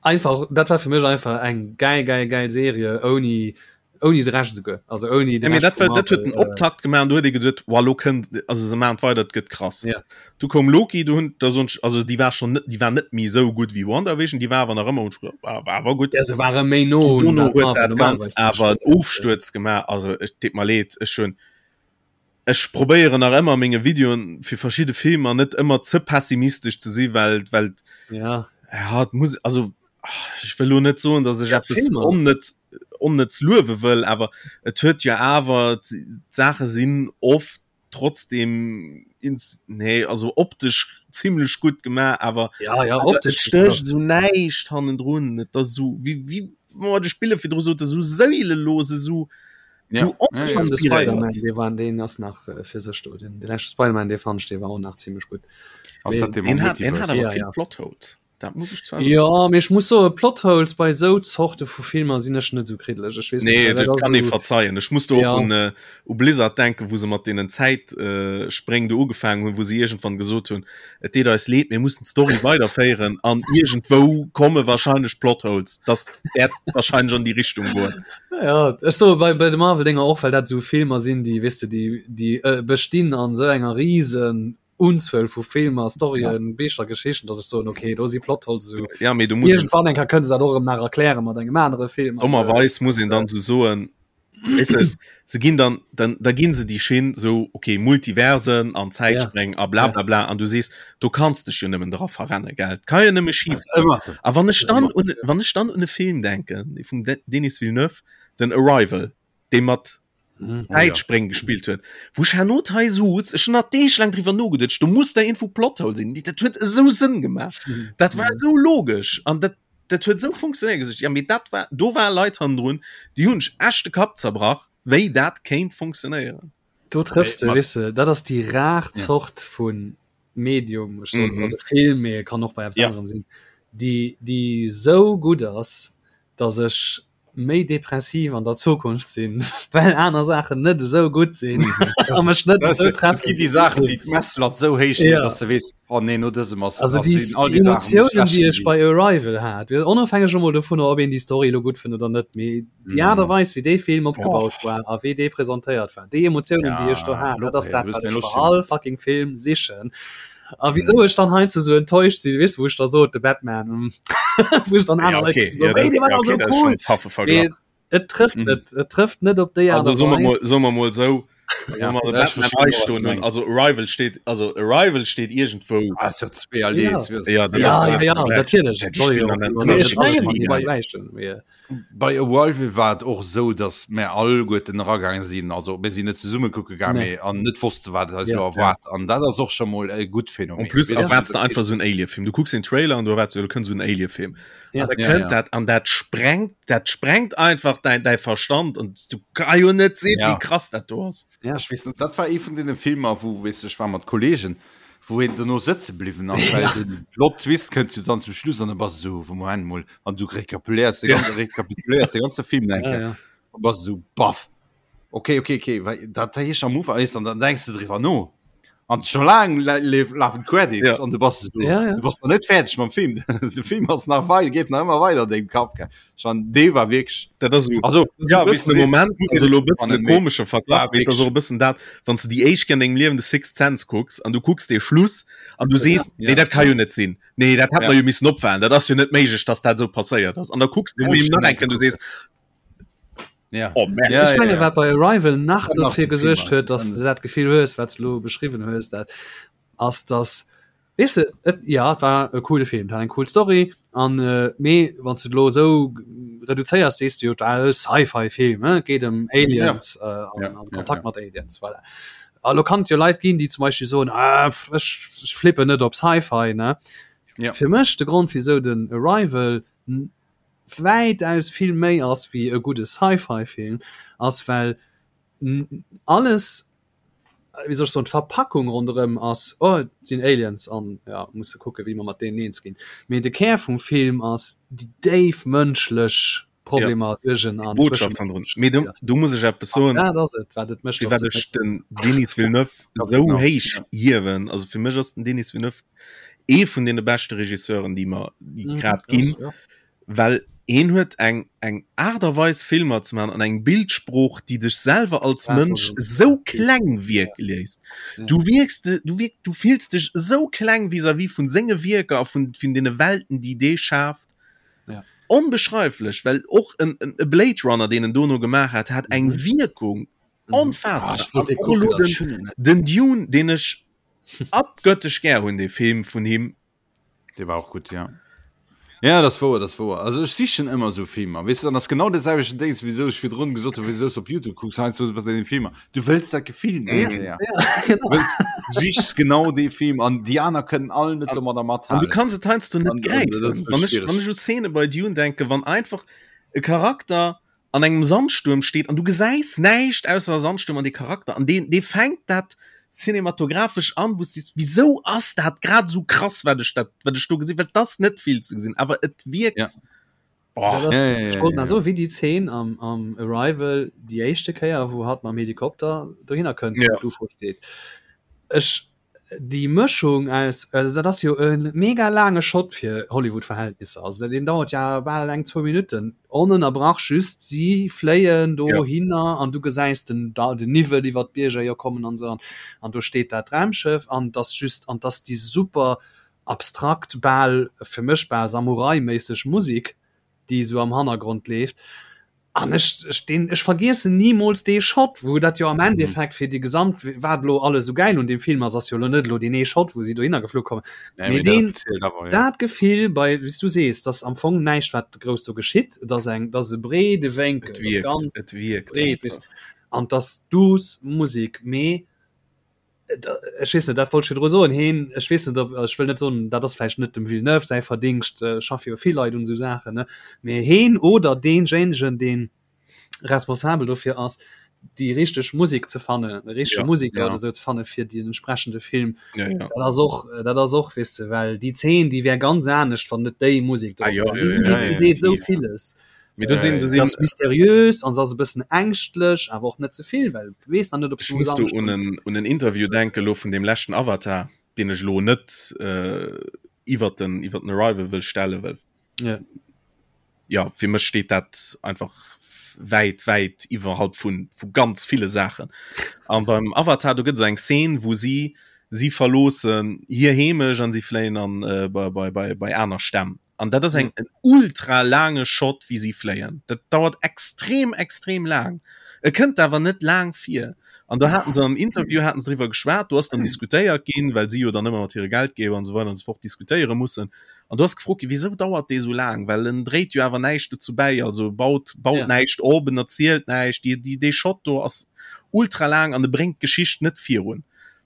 Einfach, dat war fir mech einfach eng geil, geil, geil Serie ouni ouni de Rescht esouguer. Also ouni de Ja, mee Rescht dat vu war, dat huet Marvel, den Optakt gemaach an du huet ee geduet, wow, lo kënnt, also se maachen et weider, et gëtt krass. Ja. Du koum Loki, du hunn, da soen ech, also déi war schonn net, déi war net méi esou gutt wéi WandaVision, déi war awer nach ëmmer, hunn ech geduet, war, war awer gutt. Ja, se ware méi no un Dono wat huet Marvel dat normalerweis Ganzt awer en mécht. Ofstuerz gemaach, also ech deet mer leed, ech hunn, ech probéieren nach ëmmer menge Videoen fir verschidde Filmer net ëmmer ze pessimistesch ze si, well, well Ja. ja, et muss, also ech wëll lo net soen, datt ech Ja, eppes Filmer. onnëtz, onnëtz luewe wëll, awer et huet jo awer, d'Saache sinn oft trotzdem ins, nee, also optesch zimmlech gutt gemaach, awer Ja, ja, awer et optesch stécht esou näischt hannendrun. Et ass esou wéi, wéi mer de Spiller virdru soten, esou séilelos, esou Ja. esou Ja, ja. Fand de Spider-Man, oninspiréiert. dee war, deen ass nach äh, fir sech do. Den, de leschte Spider-Man, dee fand ech, dee war och nach zimmlech gutt. Ass dat dee mam Deen hat, deen hat Multiverse? awer Ja, vill ja. Plotholes. Dat muss ech zwar soen. Ja, mee ech muss soen, Plotholes bei esou Zorte vu Filmer sinn ech net esou kriddeleg. Ech weess net, Nee, well dat dat ass kann ee esou, verzeien. Ech muss do och ja. un, äh, u Blizzard denken, wou se mat deenen Zäitspréng äh, Spréng do ugefaangen hunn, wou se iergendwann gesot hunn, et deet eis leed, mir mussen d'Story weiderféieren an iergendwou komme wahrscheinlech Plotholes. Das wäert wahrscheinlech an déi Richtung goen. Ja, ech soe bei, bei de Marvel-Dinger och, well dat esou Filmer sinn, déi, weess de, déi, déi äh, bestinn an esou enger riesen Unzuel vu Filmer, Storyen, ja. Bicher, Geschichten, dass ech soen, okay, do si Plotholes esou. Ja, mee du muss Irgendwann eng Kéier kënne se dat och erëm nach erkläre mat engem anere Film. Dommerweis muss een dann sou soen, weess de, se ginn dann, dann, da ginn se déi Schinn sou, okay, Multiversen an Zäitspréng a bla bla bla, an du sees, do kanns dech jo nëmmen dra verrenne, gell, et ka jo nëmme schif goen. Ëmmer sou. A wann ech dann un, wann ech dann un e Film denken, dee vum Denis Villeneuve, den Arrival, dee mat Mhm. Zäitspréng gespillt huet, wou ech herno hei souz, ech hunn nach Deeg laang driwwer nogeduecht, do muss der iergendwou Plothole sinn, dat huet esou Sënn gemaach, dat war esou logesch an dat, dat huet esou funktionéiert, gesot, ja mee dat war, do ware Leit hannendrun, déi hunn sech echt de Kapp zerbrach, wéi dat kéint funktionéieren. Do trëffs de, Mat- weess de, dat ass déi rar Ja. Zort vu Medium, ech soen, Mhm. also Film, mee kann och bei eppes Ja. anerem sinn, déi, déi esou gutt ass, datt ech. méi depressiv an der Zukunft sinn, well aner Saachen net esou gutt sinn a mech net esou treffen. Gi déi Saachen, déi d'Messlatt esou héich leet, dass de weess, oh nee, no dësem ass Also déi sinn all déi Saachen, déi Emotiounen, schlecht déi ech ginn. bei Arrival hat, onofhängeg emol dovunner, ob een déi Story elo gutt fënnt oder net, mee déi Aart a Weis, wéi dee Film opgebaut war a wéi dee presentéiert war, déi Emotiounen, déi ech do Ja, hat, dat ass okay, dat, du hues wat mir ech Loscht bei all gemaach. fucking Film sichen. A wieso ech dann heiansdo sou enttäuscht sinn, weess du, wou ech da sot, de Batman, hm, wou ech dann Ja, aner Leit okay. so, Ja, hey, dat, dee war ja, dach okay, sou dat ist schon cool. en taffe Verglach. Mee et trëfft Mhm. net, et trëfft net op déi Aart Also a soe mer mol, Weis. soe mer mol sou, Ja, wa mer de ja, ech Batman verstinn, hei wat du stoen hunn, mengs. also Arrival steet, also Arrival steet iergendwou. Ah, ist ja zweierlee, Ja. Ja, dat Ja, ass ja, ja, Vergleich. natierlech. Ja, Et déi soll spillen jo an och den- iwwer Mee net ech alles mengen, matenee bei- vergläichen, mee Bei Arrival war et och esou, datt mär alleguerten eragaange sinn, also mir sinn net zesumme kucke gaang, Nee. mee an net wosste wat eis Ja. elo erwaart. An dat ass och scho mol e gutt Phänomen. En plus Weess du, erwaarts de dat einfach esou en Alien-Film. Du kucks den Trailer an du erwaarts, jo, do kënnt esou en Alien-Film. Ja. An da Ja, kënnt ja. dat an dat sprengt, dat sprengt einfach däin, däi Verstand an du ka jo net sinn, Ja. wéi krass dat do ass. Ja. Ech weess net, dat war ee vun deene Filmer, wou, weess du, ech war mat Kollegen, wou een dono sëtze bliwwen ass, well den Plot Twist kënnt jo dann zum Schluss an da bass du esou, Moment mol, an du rekapituléiers de ganze, rekapituléiers de ganze Film eng Ja, Kéier ja. a bass esou, baff, okay, okay, okay, well dat heescht am Ufank, weess, an dann denks du driwwer no an scho laang lafen d'Credits Ja. an du bass esou, Ja, ja. du bass nach net fäerdeg mam Film, de Film ass nach wei geet nach ëmmer weider an dengem Kapp, gell. Schon dee war wierklech Dat ass esou also ja, ja, bëssen e Moment also lo bëssen e komesche Verglach War mee et ass och e bëssen dat wann s de déi éischt Kéier an dengem Liewen de Sixth Sense kucks an du kucks dee Schluss an du sees Ja. nee dat ka jo net sinn nee dat hätt Ja. mer jo missen opfalen dat ass jo net méiglech dass dat esou passéiert ass an da kucks de Du musst Film nach schon eng Kéier an du sees ja. oh merde Ja, Ech menge ja, ja. wat bei Arrival nach Dann nach dofir so gesuergt Filmer. huet, dass du dat Gefill hues, wat s du lo beschriwwen hues, dat ass dass Weess de, et, ja, et war e coole Film, et hat eng cool Story an mee wann s de et elo esou reduzéiers, sees de jo, et war e Sci-Fi-Film, ne, et geet ëm Aliens an Ja, an ja, Kontakt ja. mat Aliens, voilà. A lo kann et jo Leit ginn, déi zum Beispill soen, ah, ech, ech flippen net op Sci-Fi, ne. Ja. Fir mech de Grond, wisou den Arrival wäitaus vill méi ass wéi e gudde Sci-Fi-Film, ass well alles, wéi soll ech soen, d'Verpackung ronderëm ass, oh et sinn Aliens an ja musse kucke wéi mer mat deenen eens ginn. Mee de Kär vum Film ass déi déif mënschlech Problemer, ja. Suergen an Botschaft hannendrun. Mee do, do muss ech eppes soen. Dat ass et, wat et mécht. Firwat ech den Denis Villeneuve esou héich hiewen. Also fir mech ass den Denis Villeneuve ee vun deene beschte Regisseuren, déi mer déi mhm, grad ginn. Ja. Well heen huet eng eng Aart a Weis Filmer ze man an eng Bildsprooch, déi dech selwer als Mënsch sou kleng wierke léisst. Du wierks de du wierk du fills dech sou kleng vis-à-vis vun senge Wierker a vun vun deene Welten, déi dee schaaft. Ja. Onbeschreiflech, well och en en e Blade Runner, deen en dono gemaach hat, hat eng Mhm. Wierkung Mhm. onfaassbar. Ah, ech wollt dee An och kucken, elo dat den ech hunn en net. den Dune, deen ech abgöttesch gär hunn, dee Film vun him, Dee war och gutt, ja. Ja, dat ass wouer, dat ass wouer. Also ech sichen ëmmer esou Filmer, weess de, an ass genau dat selwechten Déngs, wéisou ech virdrun gesot hunn, wéisou s op Youtube kucks, heiansdo bei deene Filmer. Du wëlls dat Gefill nach eng Kéier. Ja, Du wëlls, du sichs genau dee Film an déi aner kënnen all net domadder An du mathalen. kanns et heiansdo net An, an gräifen. dat ass sou Wann ech, schwiereg. wann ech u Szene bei Dune denken, wann einfach e Charakter an engem Sandstuerm steet an du gesäis näischt ausser e Sandstuerm an dee Charakter an deen, dee fänkt dat cinematographesch an, wou s sees, wisou ass dat grad esou krass, wat ech dat, wat ech do gesinn, well et ass net vill ze gesinn, awer et wierkt. Ja. Boah. Dat ass, Ja, ja, ech ja, wollt nach ja. soen, wéi déi Zeen am, am Arrival, déi éischte Kéier, wou hatt mam Helikopter dohinner kënnt, Ja. wou d'UFO steet. Ech, déi Mëschung aus, also dat ass jo e mega laange Shot fir Hollywood-Verhältnisser, also deen dauert ja bal eng zwou Minutten onënnerbrach, just si fléien Ja. dohinner an du gesäis den da den Niwwel iwwer d'Bierger jo kommen an esou an an do steet dat Raumschëff an et ass just an et ass déi super abstrakt bal fir mech bal Samurai-méisseg Musik déi esou am Hannergrond leeft an ech ech deen ech vergiessen nimools dee Shot wou dat jo am Endeffekt fir déi gesamt wat elo alles esou gäil un deem Film ass ass jo elo net elo deen ee Shot wou si dohinner geflu kommen Nee, mee mee dat deen zielt awer, ja. dat Gefill bei wéi s du sees dass am Fong näischt wat grouss do geschitt et ass eng et ass e breede Wénkel Et et ass wierkt, ganz et wierkt breet weess einfach. an et ass duuss Musek mee ech weess net, dat wollt ech virdru soen, heen, ech weess net, ob, ech wëll net soen, dat ass vläicht net dem Villeneuve säi Verdingscht, schaffe jo vill Leit un esou Saachen, ne, mee heen oder deenjéinegen, dee responsabel dofir ass, déi richteg Musek ze fannen, de richtege Ja, Museker ja. oder esou ze fanne fir den entsprechende Film, Ja, ja. dat ass och, dat ass och, weess de, well déi Zeen, déi wär ganz anescht, wann net déi Musek Ah, drop ja, wär. ja, Déi ja, Musek, ja, déi ja, seet esou ja. villes. Mee do sinn, do sinn ass mysteriös an ass e bëssen ängschtlech, awer och net ze vill, well du weess nach net, ob Ech muss do un en, un en Interview denken elo vun deem leschten Avatar, deen ech elo net äh, iwwer den, iwwer den Arrival wëll stellen, well ja. ja, fir mech steet dat einfach wäit, wäit iwwerhalb vun, vu ganz ville Saachen. An beim Avatar, do gëtt esou eng Szene, wou si, si verloossen hir Heemecht an si fléien an, äh, bei, bei, bei, bei aner Stämm. An dat ass eng en ultra laange Shot, wéi si fléien. Dat dauert extrem, extrem laang. E kënnt awer net laang vir. An do haten se am Interview haten se driwwer geschwat, do ass dann diskutéiert ginn, well si jo dann ëmmer mat hire Geldgeber an esou weider an esou fort diskutéiere mussen. An do ass gefrot ginn, wisou dauert dee sou laang? Well en dréit jo awer näischt dozou bäi, also baut, baut ja. näischt op, en erzielt näischt. Déi, déi, dee Shot do ass ultra laang an e bréngt d'Geschicht net virun.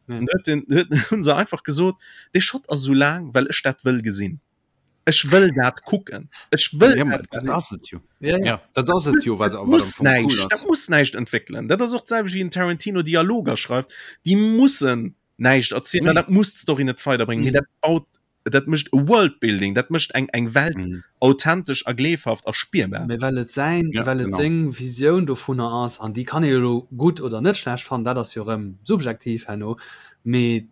Ja. An huet den, huet, hunn se einfach gesot, dee Shot ass sou laang, well ech dat wëll gesinn. Ech wëll dat kucken. Ech wëll ja, dat gesinn. Dat ass et jo. Ja, ja. ja, dat ass et jo, wat, wat muss näischt, cool dat muss näischt entwéckelen. Dat ass och d'selwecht wéi en Tarantino Dialoger schreift. Déi mussen näischt erzielen, nee. dat muss d'Story net weiderbréngen. Mhm. Mee dat baut dat mécht e Worldbuilding, dat mécht eng eng Welt mhm. authentesch a gleefhaft a spierbar. Mee well et säin, ja, well et genau. seng Visioun dovunner ass an déi kann ee jo gutt oder net schlecht fannen, dat ass jo rëm subjektiv herno, mee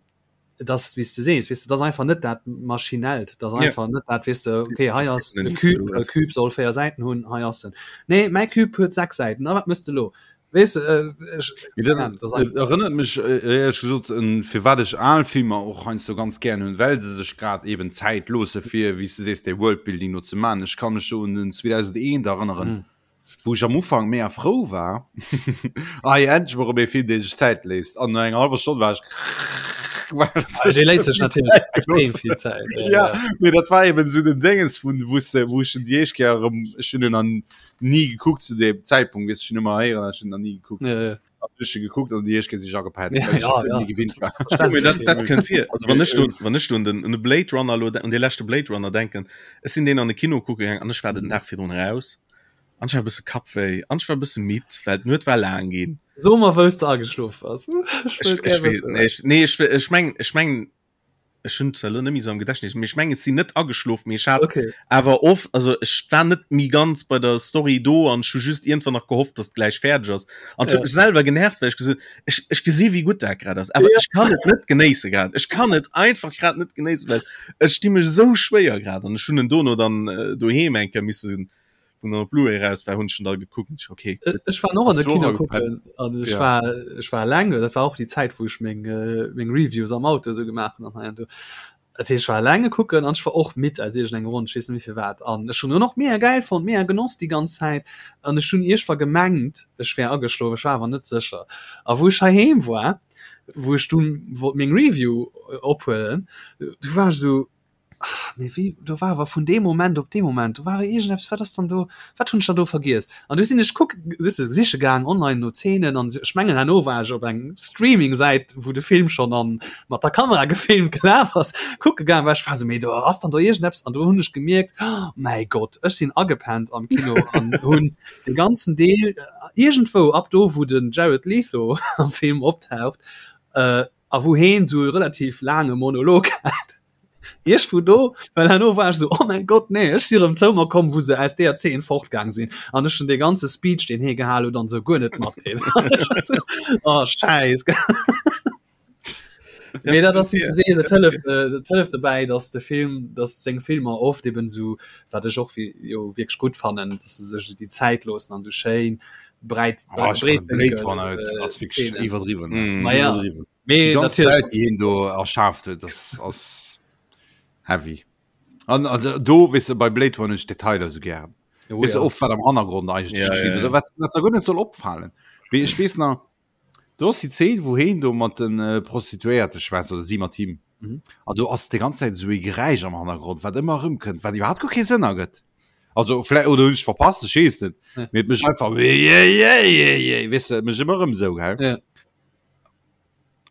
et ass wéi s de sees, weess de, et ass einfach net dat Maschinellt, et ass einfach ja. net dat, weess de, okay, hei ass e Cube, e Cube soll 4 Säiten hunn, hei ass en. Nee, mäi Cube huet 6 Säiten, a wat mëss de lo? Weess de, äh, ech, keine Ahnung, das ass einfach. Erënnert mech äh, éierlech gesot un firwat ech al Filmer och heiansdo ganz gären hunn, well se sech grad eben Zäit loosse fir, wéi s de sees, dee Worldbuilding do ze man. Ech ka mech do un den 2001 erënneren, mm. wou ech am Ufank mega frou war, ah ja, endlech mol erëm ee Film, dee sech Zäit léisst. An no enger hallwer Stonn war ech Ah, dee léisst sech natierlech extrem vill Zäit. Ja, ja. Mee dat war eben sou den Déngens vun, wou s de, wou ech en déi éischt Kéier erëm, ech hunn en an ni gekuckt zu dem Zäitpunkt, weess ech hunn ëmmer héieren, ech hunn nach ni gekuckt. Ja, ja. An ech hu gekuckt an déi éischt Kéier sinn ech agepennt, Ja, well ech ja, et ja. net méi gewinnt war. Ja, mee dat, dat kënnt vir. Also wann ech do, Verständlech. wann ech do un den, un de Blade Runner lo, un dee leschte Blade Runner denken, ech sinn deen an de Kino kucke gaang an ech war den Dag virdrun eraus an ech hat e bësse Kappwéi an ech war e bësse midd, well d'Nuet war laang ginn. So mer wous de ageschlof bass. Ech Ech, wëll ech gär weess, wëssen. nee, ech, nee, ech, ech meng, ech meng, ech hunn zwar elo net méi esou am Gedächtnis, mee ech mengen, ech sinn net ageschlof, mee ech hat Okay. awer of, also ech war net méi ganz bei der Story do an ech hu just iergendwann nach gehofft, dass et gläich fäerdeg ass. An et huet Ja. mech selwer genervt, well ech gesot ech, ech gesi wéi gutt dat grad ass, awer Ja. ech kann et net genéisse grad. Ech kann et einfach grad net genéissen, well ech di mech esou schwéier grad an ech hunn en dono dann äh, doheem eng Kéier missen wou dann op Blu-ray raus war, hunn ech en da gekuckt und ich, okay, Äh, gutt. Ech war och an Ass de du och Kino agepennt? kucken an ech Ja. war ech war eleng, dat war och déi Zäit wou ech meng äh, meng Reviews am Auto esou gemaach hunn an hei an do. Dat heescht ech war elenge kucken an ech war och midd aus iergendengem Grond, ech weess net méi firwat an ech hunn en och mega gäil fonnt, mega genoss déi ganz Zäit an ech hunn iergendwa gemengt ech wär ageschlof, ech war awer net sécher a wou ech heiheem war, wou ech dunn wollt meng Review ophuelen, du war ech esou, Ah, mee wéi, do war awer vun deem Moment op dee Moment, do war iergendeppes, wat ass dann do, wat hunn ech dann do vergiess? An du sinn ech kuck, siehst du, siche gaang online no Zeenen an ech mengen herno war ech op eng Streaming-Säit, wou de Film schonn an mat der Kamera gefilmt gelaf ass, kucke gaang, well ech war esou, mee do ass dann do iergendeppes an do hunn ech gemierkt, oh mäi Gott, ech sinn agepennt am Kino an hunn de ganzen Deel iergendwou ab do, wou den Jared Leto am Film optaucht, a wou heen esou e relativ laange Monolog hat. Iech vu do, well herno war ech so, oh mein Gott, nee, ech si rëm zou mer komm, wou se aus deeër Zeen fortgaang sinn an ech hunn dee ganze Speech, deen hee gehal huet an esou guer net matkritt. Oh, Schäiss. Mee dat ass wéi s de sees, et hëlleft, et hëlleft dobäi, datt de Film, datt seng Filmer oft eben esou, wat ech och jo wierklech gutt fannen, datt se sech esou déi Zäit loossen an esou schéin breit, Oh, ech fannen Blade Runner breetwénkel ass wierklech Zeenen. iwwerdriwwen, Mm. Ma ja. iwwerdriwwen. Mee Die ganz natierlech Welt, déi hien do erschaaft huet, das ass heavy. An, an do, weess de, bei Blade Runner hunn ech d'Detailer sou gären. Oh, Weess de, ja. oft wat am Hannergrond eigentlech Ja, geschitt ja, ja. oder wat, wat der guer net soll opfalen. Wéi ech weess nach, do ass déi Zeen, wou heen do mat den äh, Prostituéierte schwätzt oder si mat him. Mhm. An do ass déi ganz Zäit esou ee Geräisch am Hannergrond, wat ëmmer erëmkënnt, wat iwwerhaapt guer kee Sënn ergëtt. Also vläicht oder hunn ech verpasst, ech weess net. Ja. Mee et mécht einfach weess de, mécht ëmmer erëm esou, gell? Ja.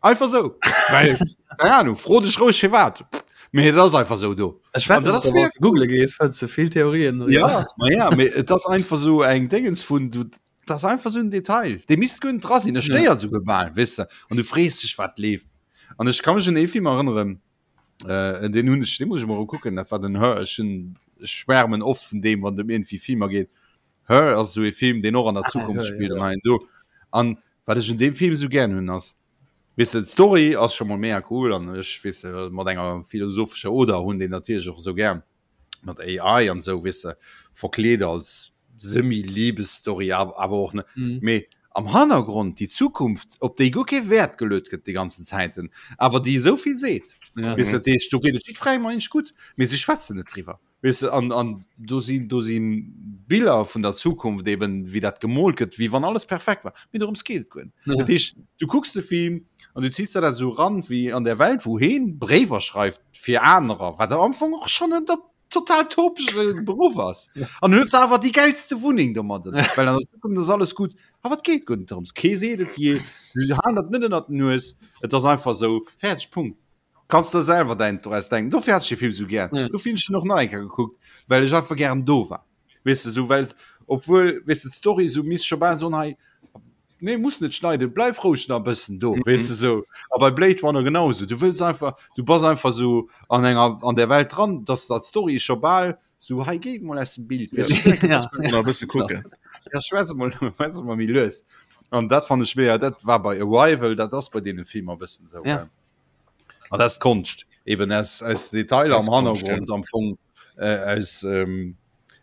Einfach so. Weil, keine Ahnung, fro dech roueg firwat. Mee et ass einfach so do. Ech wette, dat ass wann du google gees, fënns du vill Theorien. Ja, ma ja, mee et ass einfach so eng Dingens vun du das einfach so en Detail. Dee misst guer net dra sinn, e stéiert souguer bal, weess de. An du frees dech, wat leeft. An ech ka mech un ee Film erënneren, äh, den hunn ech, dee muss ech mol kucken, dat war den Her. Ech hunn, ech schwärmen oft vun deem, wann et ëm iergendwéi Filmer geet. Her ass esou ee Film, deen och an der Zukunft ah, spillt an hei do. An wat ech un deem Film esou gären hunn ass, weess de, d'Story ass scho mol mega cool an ech weess de, mat enger philosophescher Oder hunn deen natierlech och esou gär mat AI an esou, weess de, verkleet als Semi-Liebesstory awer och net. Mm. Mee am Hannergrond déi Zukunft, op déi guer kee Wäert geluet gëtt déi ganzen Zäiten, awer déi esou vill seet. Ja. Weess de, dat heescht, do geet et jiddwerengem eigentlech gutt, mee si schwätzen net driwwer. Weess de, an, an do sinn, do si Biller vun der Zukunft eben, wéi dat gemoolt gëtt, wéi wann alles perfekt war. Mee dorëms geet et guer net. Ja. Dat heescht, du kucks de Film an du ziehs der dat esou ran, wéi an der Welt, wou heen Bréiwer schreift fir anerer, wat am Anfang och schonn en total topege Beruff ass. An huet se awer déi gäilste Wunneng domadden, well an der Zukunft ass alles gutt. Awer et geet guer net dorëms. Kee seet et jee, si halen dat net ënnert den Nues. Et ass einfach esou, fäerdeg, Punkt. Kanns der selwer däin draus denken. Dofir hat ech de Film sou gär. Ja. Dofir hunn ech en och nach eng Kéier gekuckt, well ech einfach gären do war. Weess de, sou well obwuel weess de d'Story sou misst scho bal soen hei nee muss net schneiden, bleif roueg nach e bëssen do, weess de sou. A bei Blade Runner genau sou. Du wëlls einfach, du bass einfach sou an enger an der Welt dran, dass dat d'Story scho bal sou hei géi mol aus dem Bild. Weess de, Ja. Nach e bësse kucken. Ja, schwätz mol, schwätz mol méi lues. An dat fand ech mega, dat war bei Arrival, dat ass bei deene Filmer e bëssen sou. Ja. An das Konscht eben aus, aus Detailer am Hannergrund am Fong äh, aus ähm,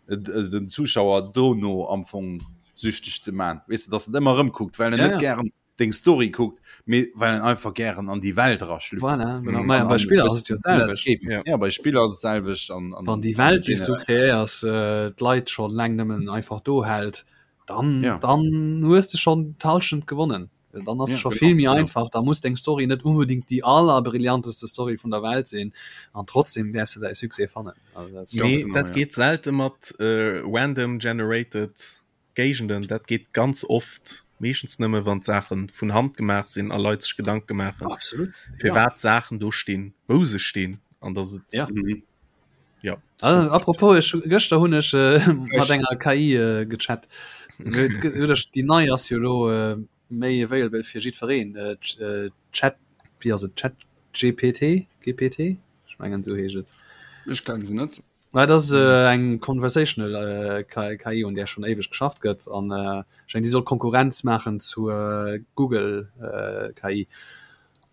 äh, den Zuschauer dono am Fong süchteg ze man. Weißt du, dass en ëmmer rëmkuckt, well en Ja, net ja. gären deng Story kuckt, mee well en einfach gären an déi Welt eraschlüpft. Voilà, genau. Mhm. Maja, An- bei an Spiller das- ass et jo d'selwecht. Escape. Ja. Ja, bei Spiller ass et selwecht an, an Wann déi Welt, déi s du generell. kreéiers, äh, d'Leit schon laang nëmmen einfach do hält, dann, Ja. dann hues de schon d'Halschent gewonnen. Dann ass Ja, scho genau, vill méi genau. einfach, da muss deng Story net unbedingt déi allerbrillianteste Story vun der Welt sinn an trotzdem wäers de däi Succès fannen. Also dat Ganz Nee, genau, dat ja. geet selte mat äh, random generated Géigenden. Dat geet ganz oft meeschtens nëmme wann d'Saachen vun Hand gemaach sinn a Leit sech Gedanke maachen, Absolut. fir Ja. wat Saachen do stinn, wou se stinn an dass et Ja. Mhm. ja. Also, apropos, ech, gëschter hunn ech äh, mat enger KI äh, gechat. Déi nei ass jo lo äh, méi available fir jiddwereen. Äh, äh, Chat, wéi ass et? Chat GPT? GPT? Ech mengen esou heescht et. Ech kenne se net. Mä dat ass äh, eng conversational äh, KI, un där schonn éiweg geschafft gëtt an äh, ech mengen, déi soll Konkurrenz maachen zu äh, Google äh, KI.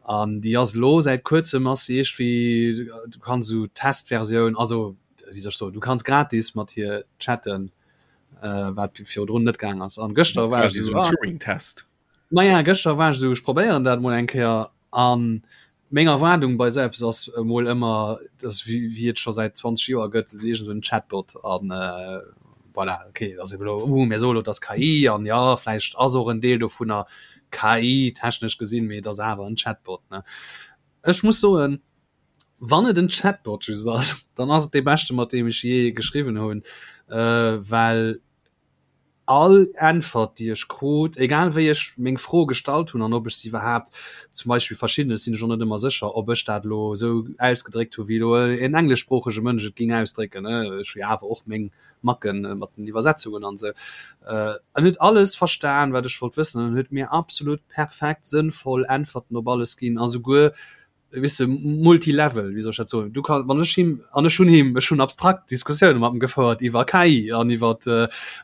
An déi ass elo säit kuerzem ass se iergendwéi, du kanns esou Testversioun, also wéi soll ech soen, du kanns gratis mat hir chatten, äh, wat virdrun net gaang ass. An gëschter war ech Quasi esou, so en ah, Turing-Test. Maja, gëschter war ech esou, ech probéieren dat mol eng Kéier an meng Erwaardung bei esou eppes ass emol ëmmer, dass wéi wéi et scho säit 20 Joer gëtt, esou iergend esou en Chatbot an voilà, okay, ass ebe lo, uh, mir soe lo, et ass KI an jo, vläicht ass och en Deel dovunner KI, technesch gesinn, mee et ass awer en Chatbot, ne. Ech muss soen, wann et en Chatbot just ass, dann ass et dee beschte mat deem ech jee geschriwwen hunn, well All Äntwert, déi ech krut, egal wéi ech meng Fro gestallt hunn an ob ech se iwwerhaapt, zum Beispill verschiddenes sinn ech och net ëmmer sécher, ob ech dat elo esou ausgedréckt hu wéi elo en engleschsproochege Mënsch et géing ausdrécken, ech hu jo awer och meng Macke mat den Iwwersetzungen an esou, en huet alles verstan, wat ech wollt wëssen an huet mir absolut perfekt sënnvoll Äntwerten op alles ginn a souguer weess de, multilevel, wéi soll ech dat soen, du kann, wann ech him, an ech hunn him, ech hunn abstrakt Diskussioune mat em gefouert iwwer KI an iwwer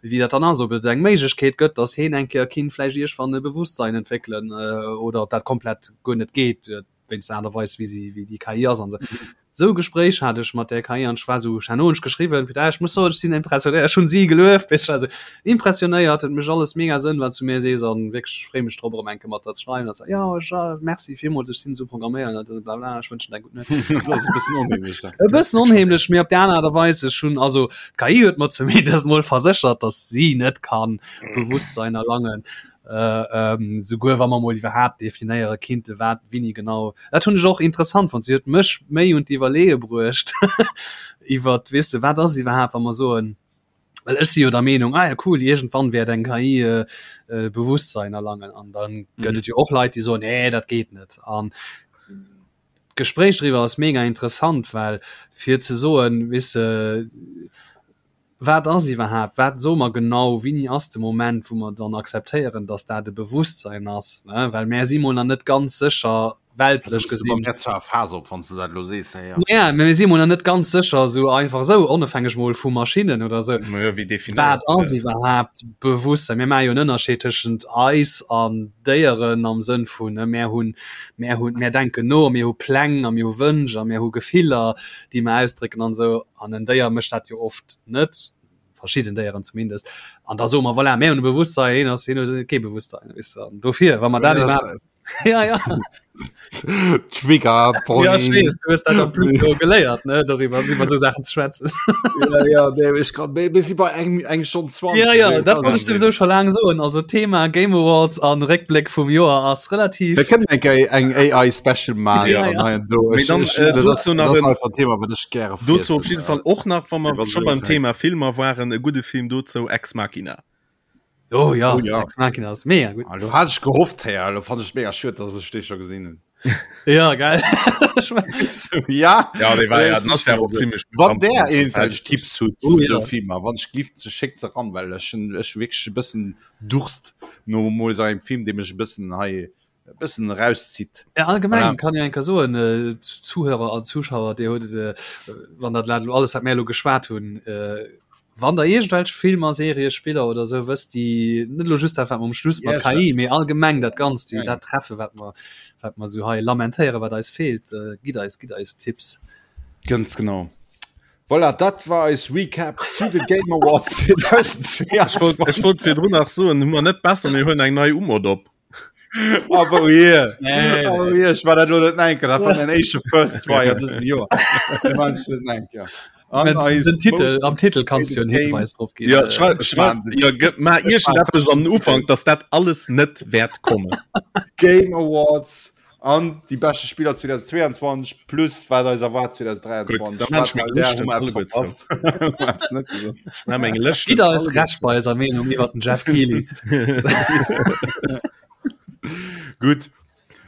wéi dat dann ass, ob et eng Méiglechkeet gëtt, datt heen eng Kéier kinnt vläicht iergwann e Bewusstsein entwéckelen oder ob dat komplett guer net geet wéinst der Aart a Weis wéi si, wéi déi KI ass an esou. Esou Gespréich hat ech mat där KI an ech war esou, ech hat no ech geschriwwen, putain, ech muss soen, ech sinn impressionéiert, ech hunn si gelueft, weess ech, also impressionéiert, et mécht alles mega Sënn, wat s du mir sees an wierklech, ech freeë mech drop, erëm eng Kéier mat der ze schreiwen. An se, jo, ech, merci villmools, ech sinn esou programméiert an blabla, ech wënschen der eng gutt Nuet. Dat ass e bëssen onheemlech dann. E bëssen onheemlech, mee op där aner Aart a Weis, ech hunn, also d'KI huet mer zumindest mol verséchert, datt si net kann Bewusstsein erlangen. Äh, ähm, souguer wa mer mol iwwerhaapt definéiere kinnte wat wini genau. Dat hunn ech och interessant fonnt. Si huet mech méi un d'Iwwerleeë bruecht iwwer weess de, wat ass iwwerhaapt wa mer soen, well ech si jo der Meenung, ah ja cool, iergendwann wäert eng KI äh, äh, Bewusstsein erlangen an dann gëtt mhm. et jo och Leit, déi soen, nee, dat geet net. An d'Gespréich driwwer ass mega interessant, well fir ze soen, weess de, Wat ass iwwerhaapt, wat soe mer genau, wéini ass de Moment, wou mer dann akzeptéieren, datt dat e Bewusstsein ass, ne? Well mär si mol nach net ganz sécher, Weltlech gesinn. Mir zwar Phase op, wann s de dat elo sees, ja. Ja, mä mir si mol nach net ganz sécher, esou einfach esou, onofhängeg mol vu Maschinnen oder esou. Ma jo, wéi definéiert Wat ass iwwerhaapt Bewusstsein? Mir maache jo en Ënnerscheed tëschent eis an Déieren am Sënn vun, ne, mär hunn, mär hunn, mär denken no, mir hu Pläng a mir hu Wënsch a mir hu Gefiller, déi mer ausdrécken an esou. An en Déier mécht dat jo oft net, verschidden Déieren zumindest. An da soe mer, voilà, mär hunn e Bewusstsein, hien ass, hien huet kee Bewusstsein, weess de. An dofir, wa mer dat iwwerhaapt ja ja Trigger ja, ich weiß, du hast dat plus so geléiert ne darüber über so Sachen zu schwätzen ja, ja, nee, ich kann, bis bei eng eng schon 20 ja ja das wollte ich sowieso schon lange so also Thema Game Awards an Réckblick vum Joer ass relativ wir können eng eng AI Special machen ja, ja. Do, ich, dann, ich, äh, das, dazu nach das ein, Thema wat ich gerne dazu auf jeden Fall och nach wann wir schon beim Thema Filmer waren e gute Film dazu Ex Machina Oh ja, oh, ja. Ex Machina ass mega gut. Ah, du hat ich gehofft hey, du fand ich mega schön dass ich dich schon gesehen hun ja geil ja ja die war ja, das ja ziemlich wann der irgendwelche Tipps hutt oh, ja. so Filmer wann ich gift ze schickt ze ran well ech hun ech wirklich e bëssen Durst no mol so engem Film dee mech e bëssen hei e bëssen rauszitt Ja, allgemein Voilà. kann jo enker soen äh, Zuhörer an Zuschauer Dir huet äh, wann dat lo alles wat mär lo geschwat hunn äh, wann der iergendwelch Filmer, Serie, Spiller oder sou wësst déi net lo just dat wat mer um Schluss mat Ja, KI, mee allgemeng dat Ganzt déi Ja, ja. dat treffe wat mer wat mer sou hei lamentéiere wat eis feelt, äh, gitt eis gitt eis Tipps. Ganz genau. Voilà, dat war eis Recap zu de Game Awards 2022. Ech wollt, ech wollt virdrun nach soen, hu mer net besser, mir huelen eng nei Umod op. Aber hier, Nee, aber hier, ich war dat lo net enke, dat war mein éischte First Try an dësem Joer. Dat war ich net enke. An Mit eis den Titel, most am Titel kannst du en Game. Hinweis drop ginn. Ja, Äh, schreib, schreib, ja, gëtt ma iergendeppes an den Ufank, dass dat alles net wäert kommen. Game Awards an déi beschte Spiller 2022 plus wat eis erwaart 2023. Gutt, da maan ech meng Wat Lëschten hu mer eppes alleguer zou. verpasst? Hu mer eppes net gesot? Ech meng Lëschten Gitt eis alleguer Recht bei eiser Meenung iwwer den Jeff Keighley. Gutt.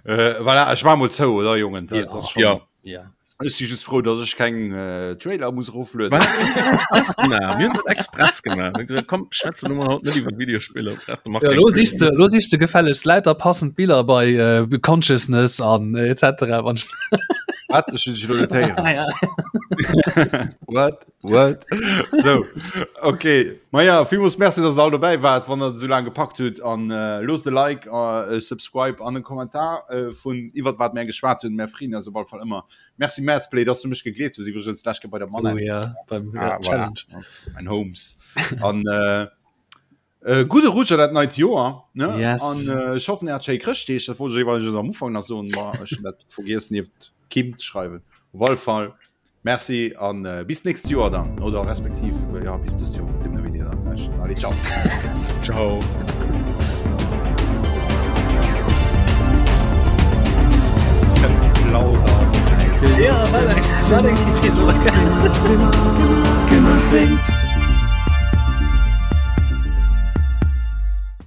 Äh, voilà, ech war mol zou, oder Jongen? Dat Ja. ass schon- Ja. Ja. Ech si just frou, dass ech keng äh, Trailer muss eroflueden. Wat? Express gemaach. Mir hunn dat express gemaach. Mir hunn gesagt, komm, schwätzen wir haut net iwwer Videospiller. Ich dachte, mach Ja, keng lo Trailer. sichst du, lo sichst du gefällegst lauter passend Biller bei äh, Consciousness an äh, etc. Wann Wat? Ech hunn dech elo net héieren. Ah, ja. What? What? So, okay. Ma ja, villmools Merci, dass der all dobäi waart, wann der esou laang gepackt hutt. An äh, loosst e Like, äh, e Subscribe an en Kommentar äh, vun iwwert wat mär geschwat hunn. Mär freeën eis op alle Fall ëmmer. Merci Madsplay, dass du mech gegleeft hues, iwwregens d'lescht Kéier bei der Oh Manette. ja, beim Ah, ja, voilà. Challenge. Mein Holmes. An äh, äh, gudde Rutsch an dat neit Joer. Ne? Yes. An äh, ech hoffen, Dir hat schéi Chrëschtdeeg. Dat wollt ech iwwregens am Ufank nach soen, ma ech hunn dat vergiess nieft Kim ze schreiwen. Op alle Fall Merci an äh, bis nächst Joer dann oder respektiv äh, ja bis dëst Joer dem wéini dann lauschtert. Allez, ciao. Ciao. Ja, war eng, war eng Episode. Gamer Things.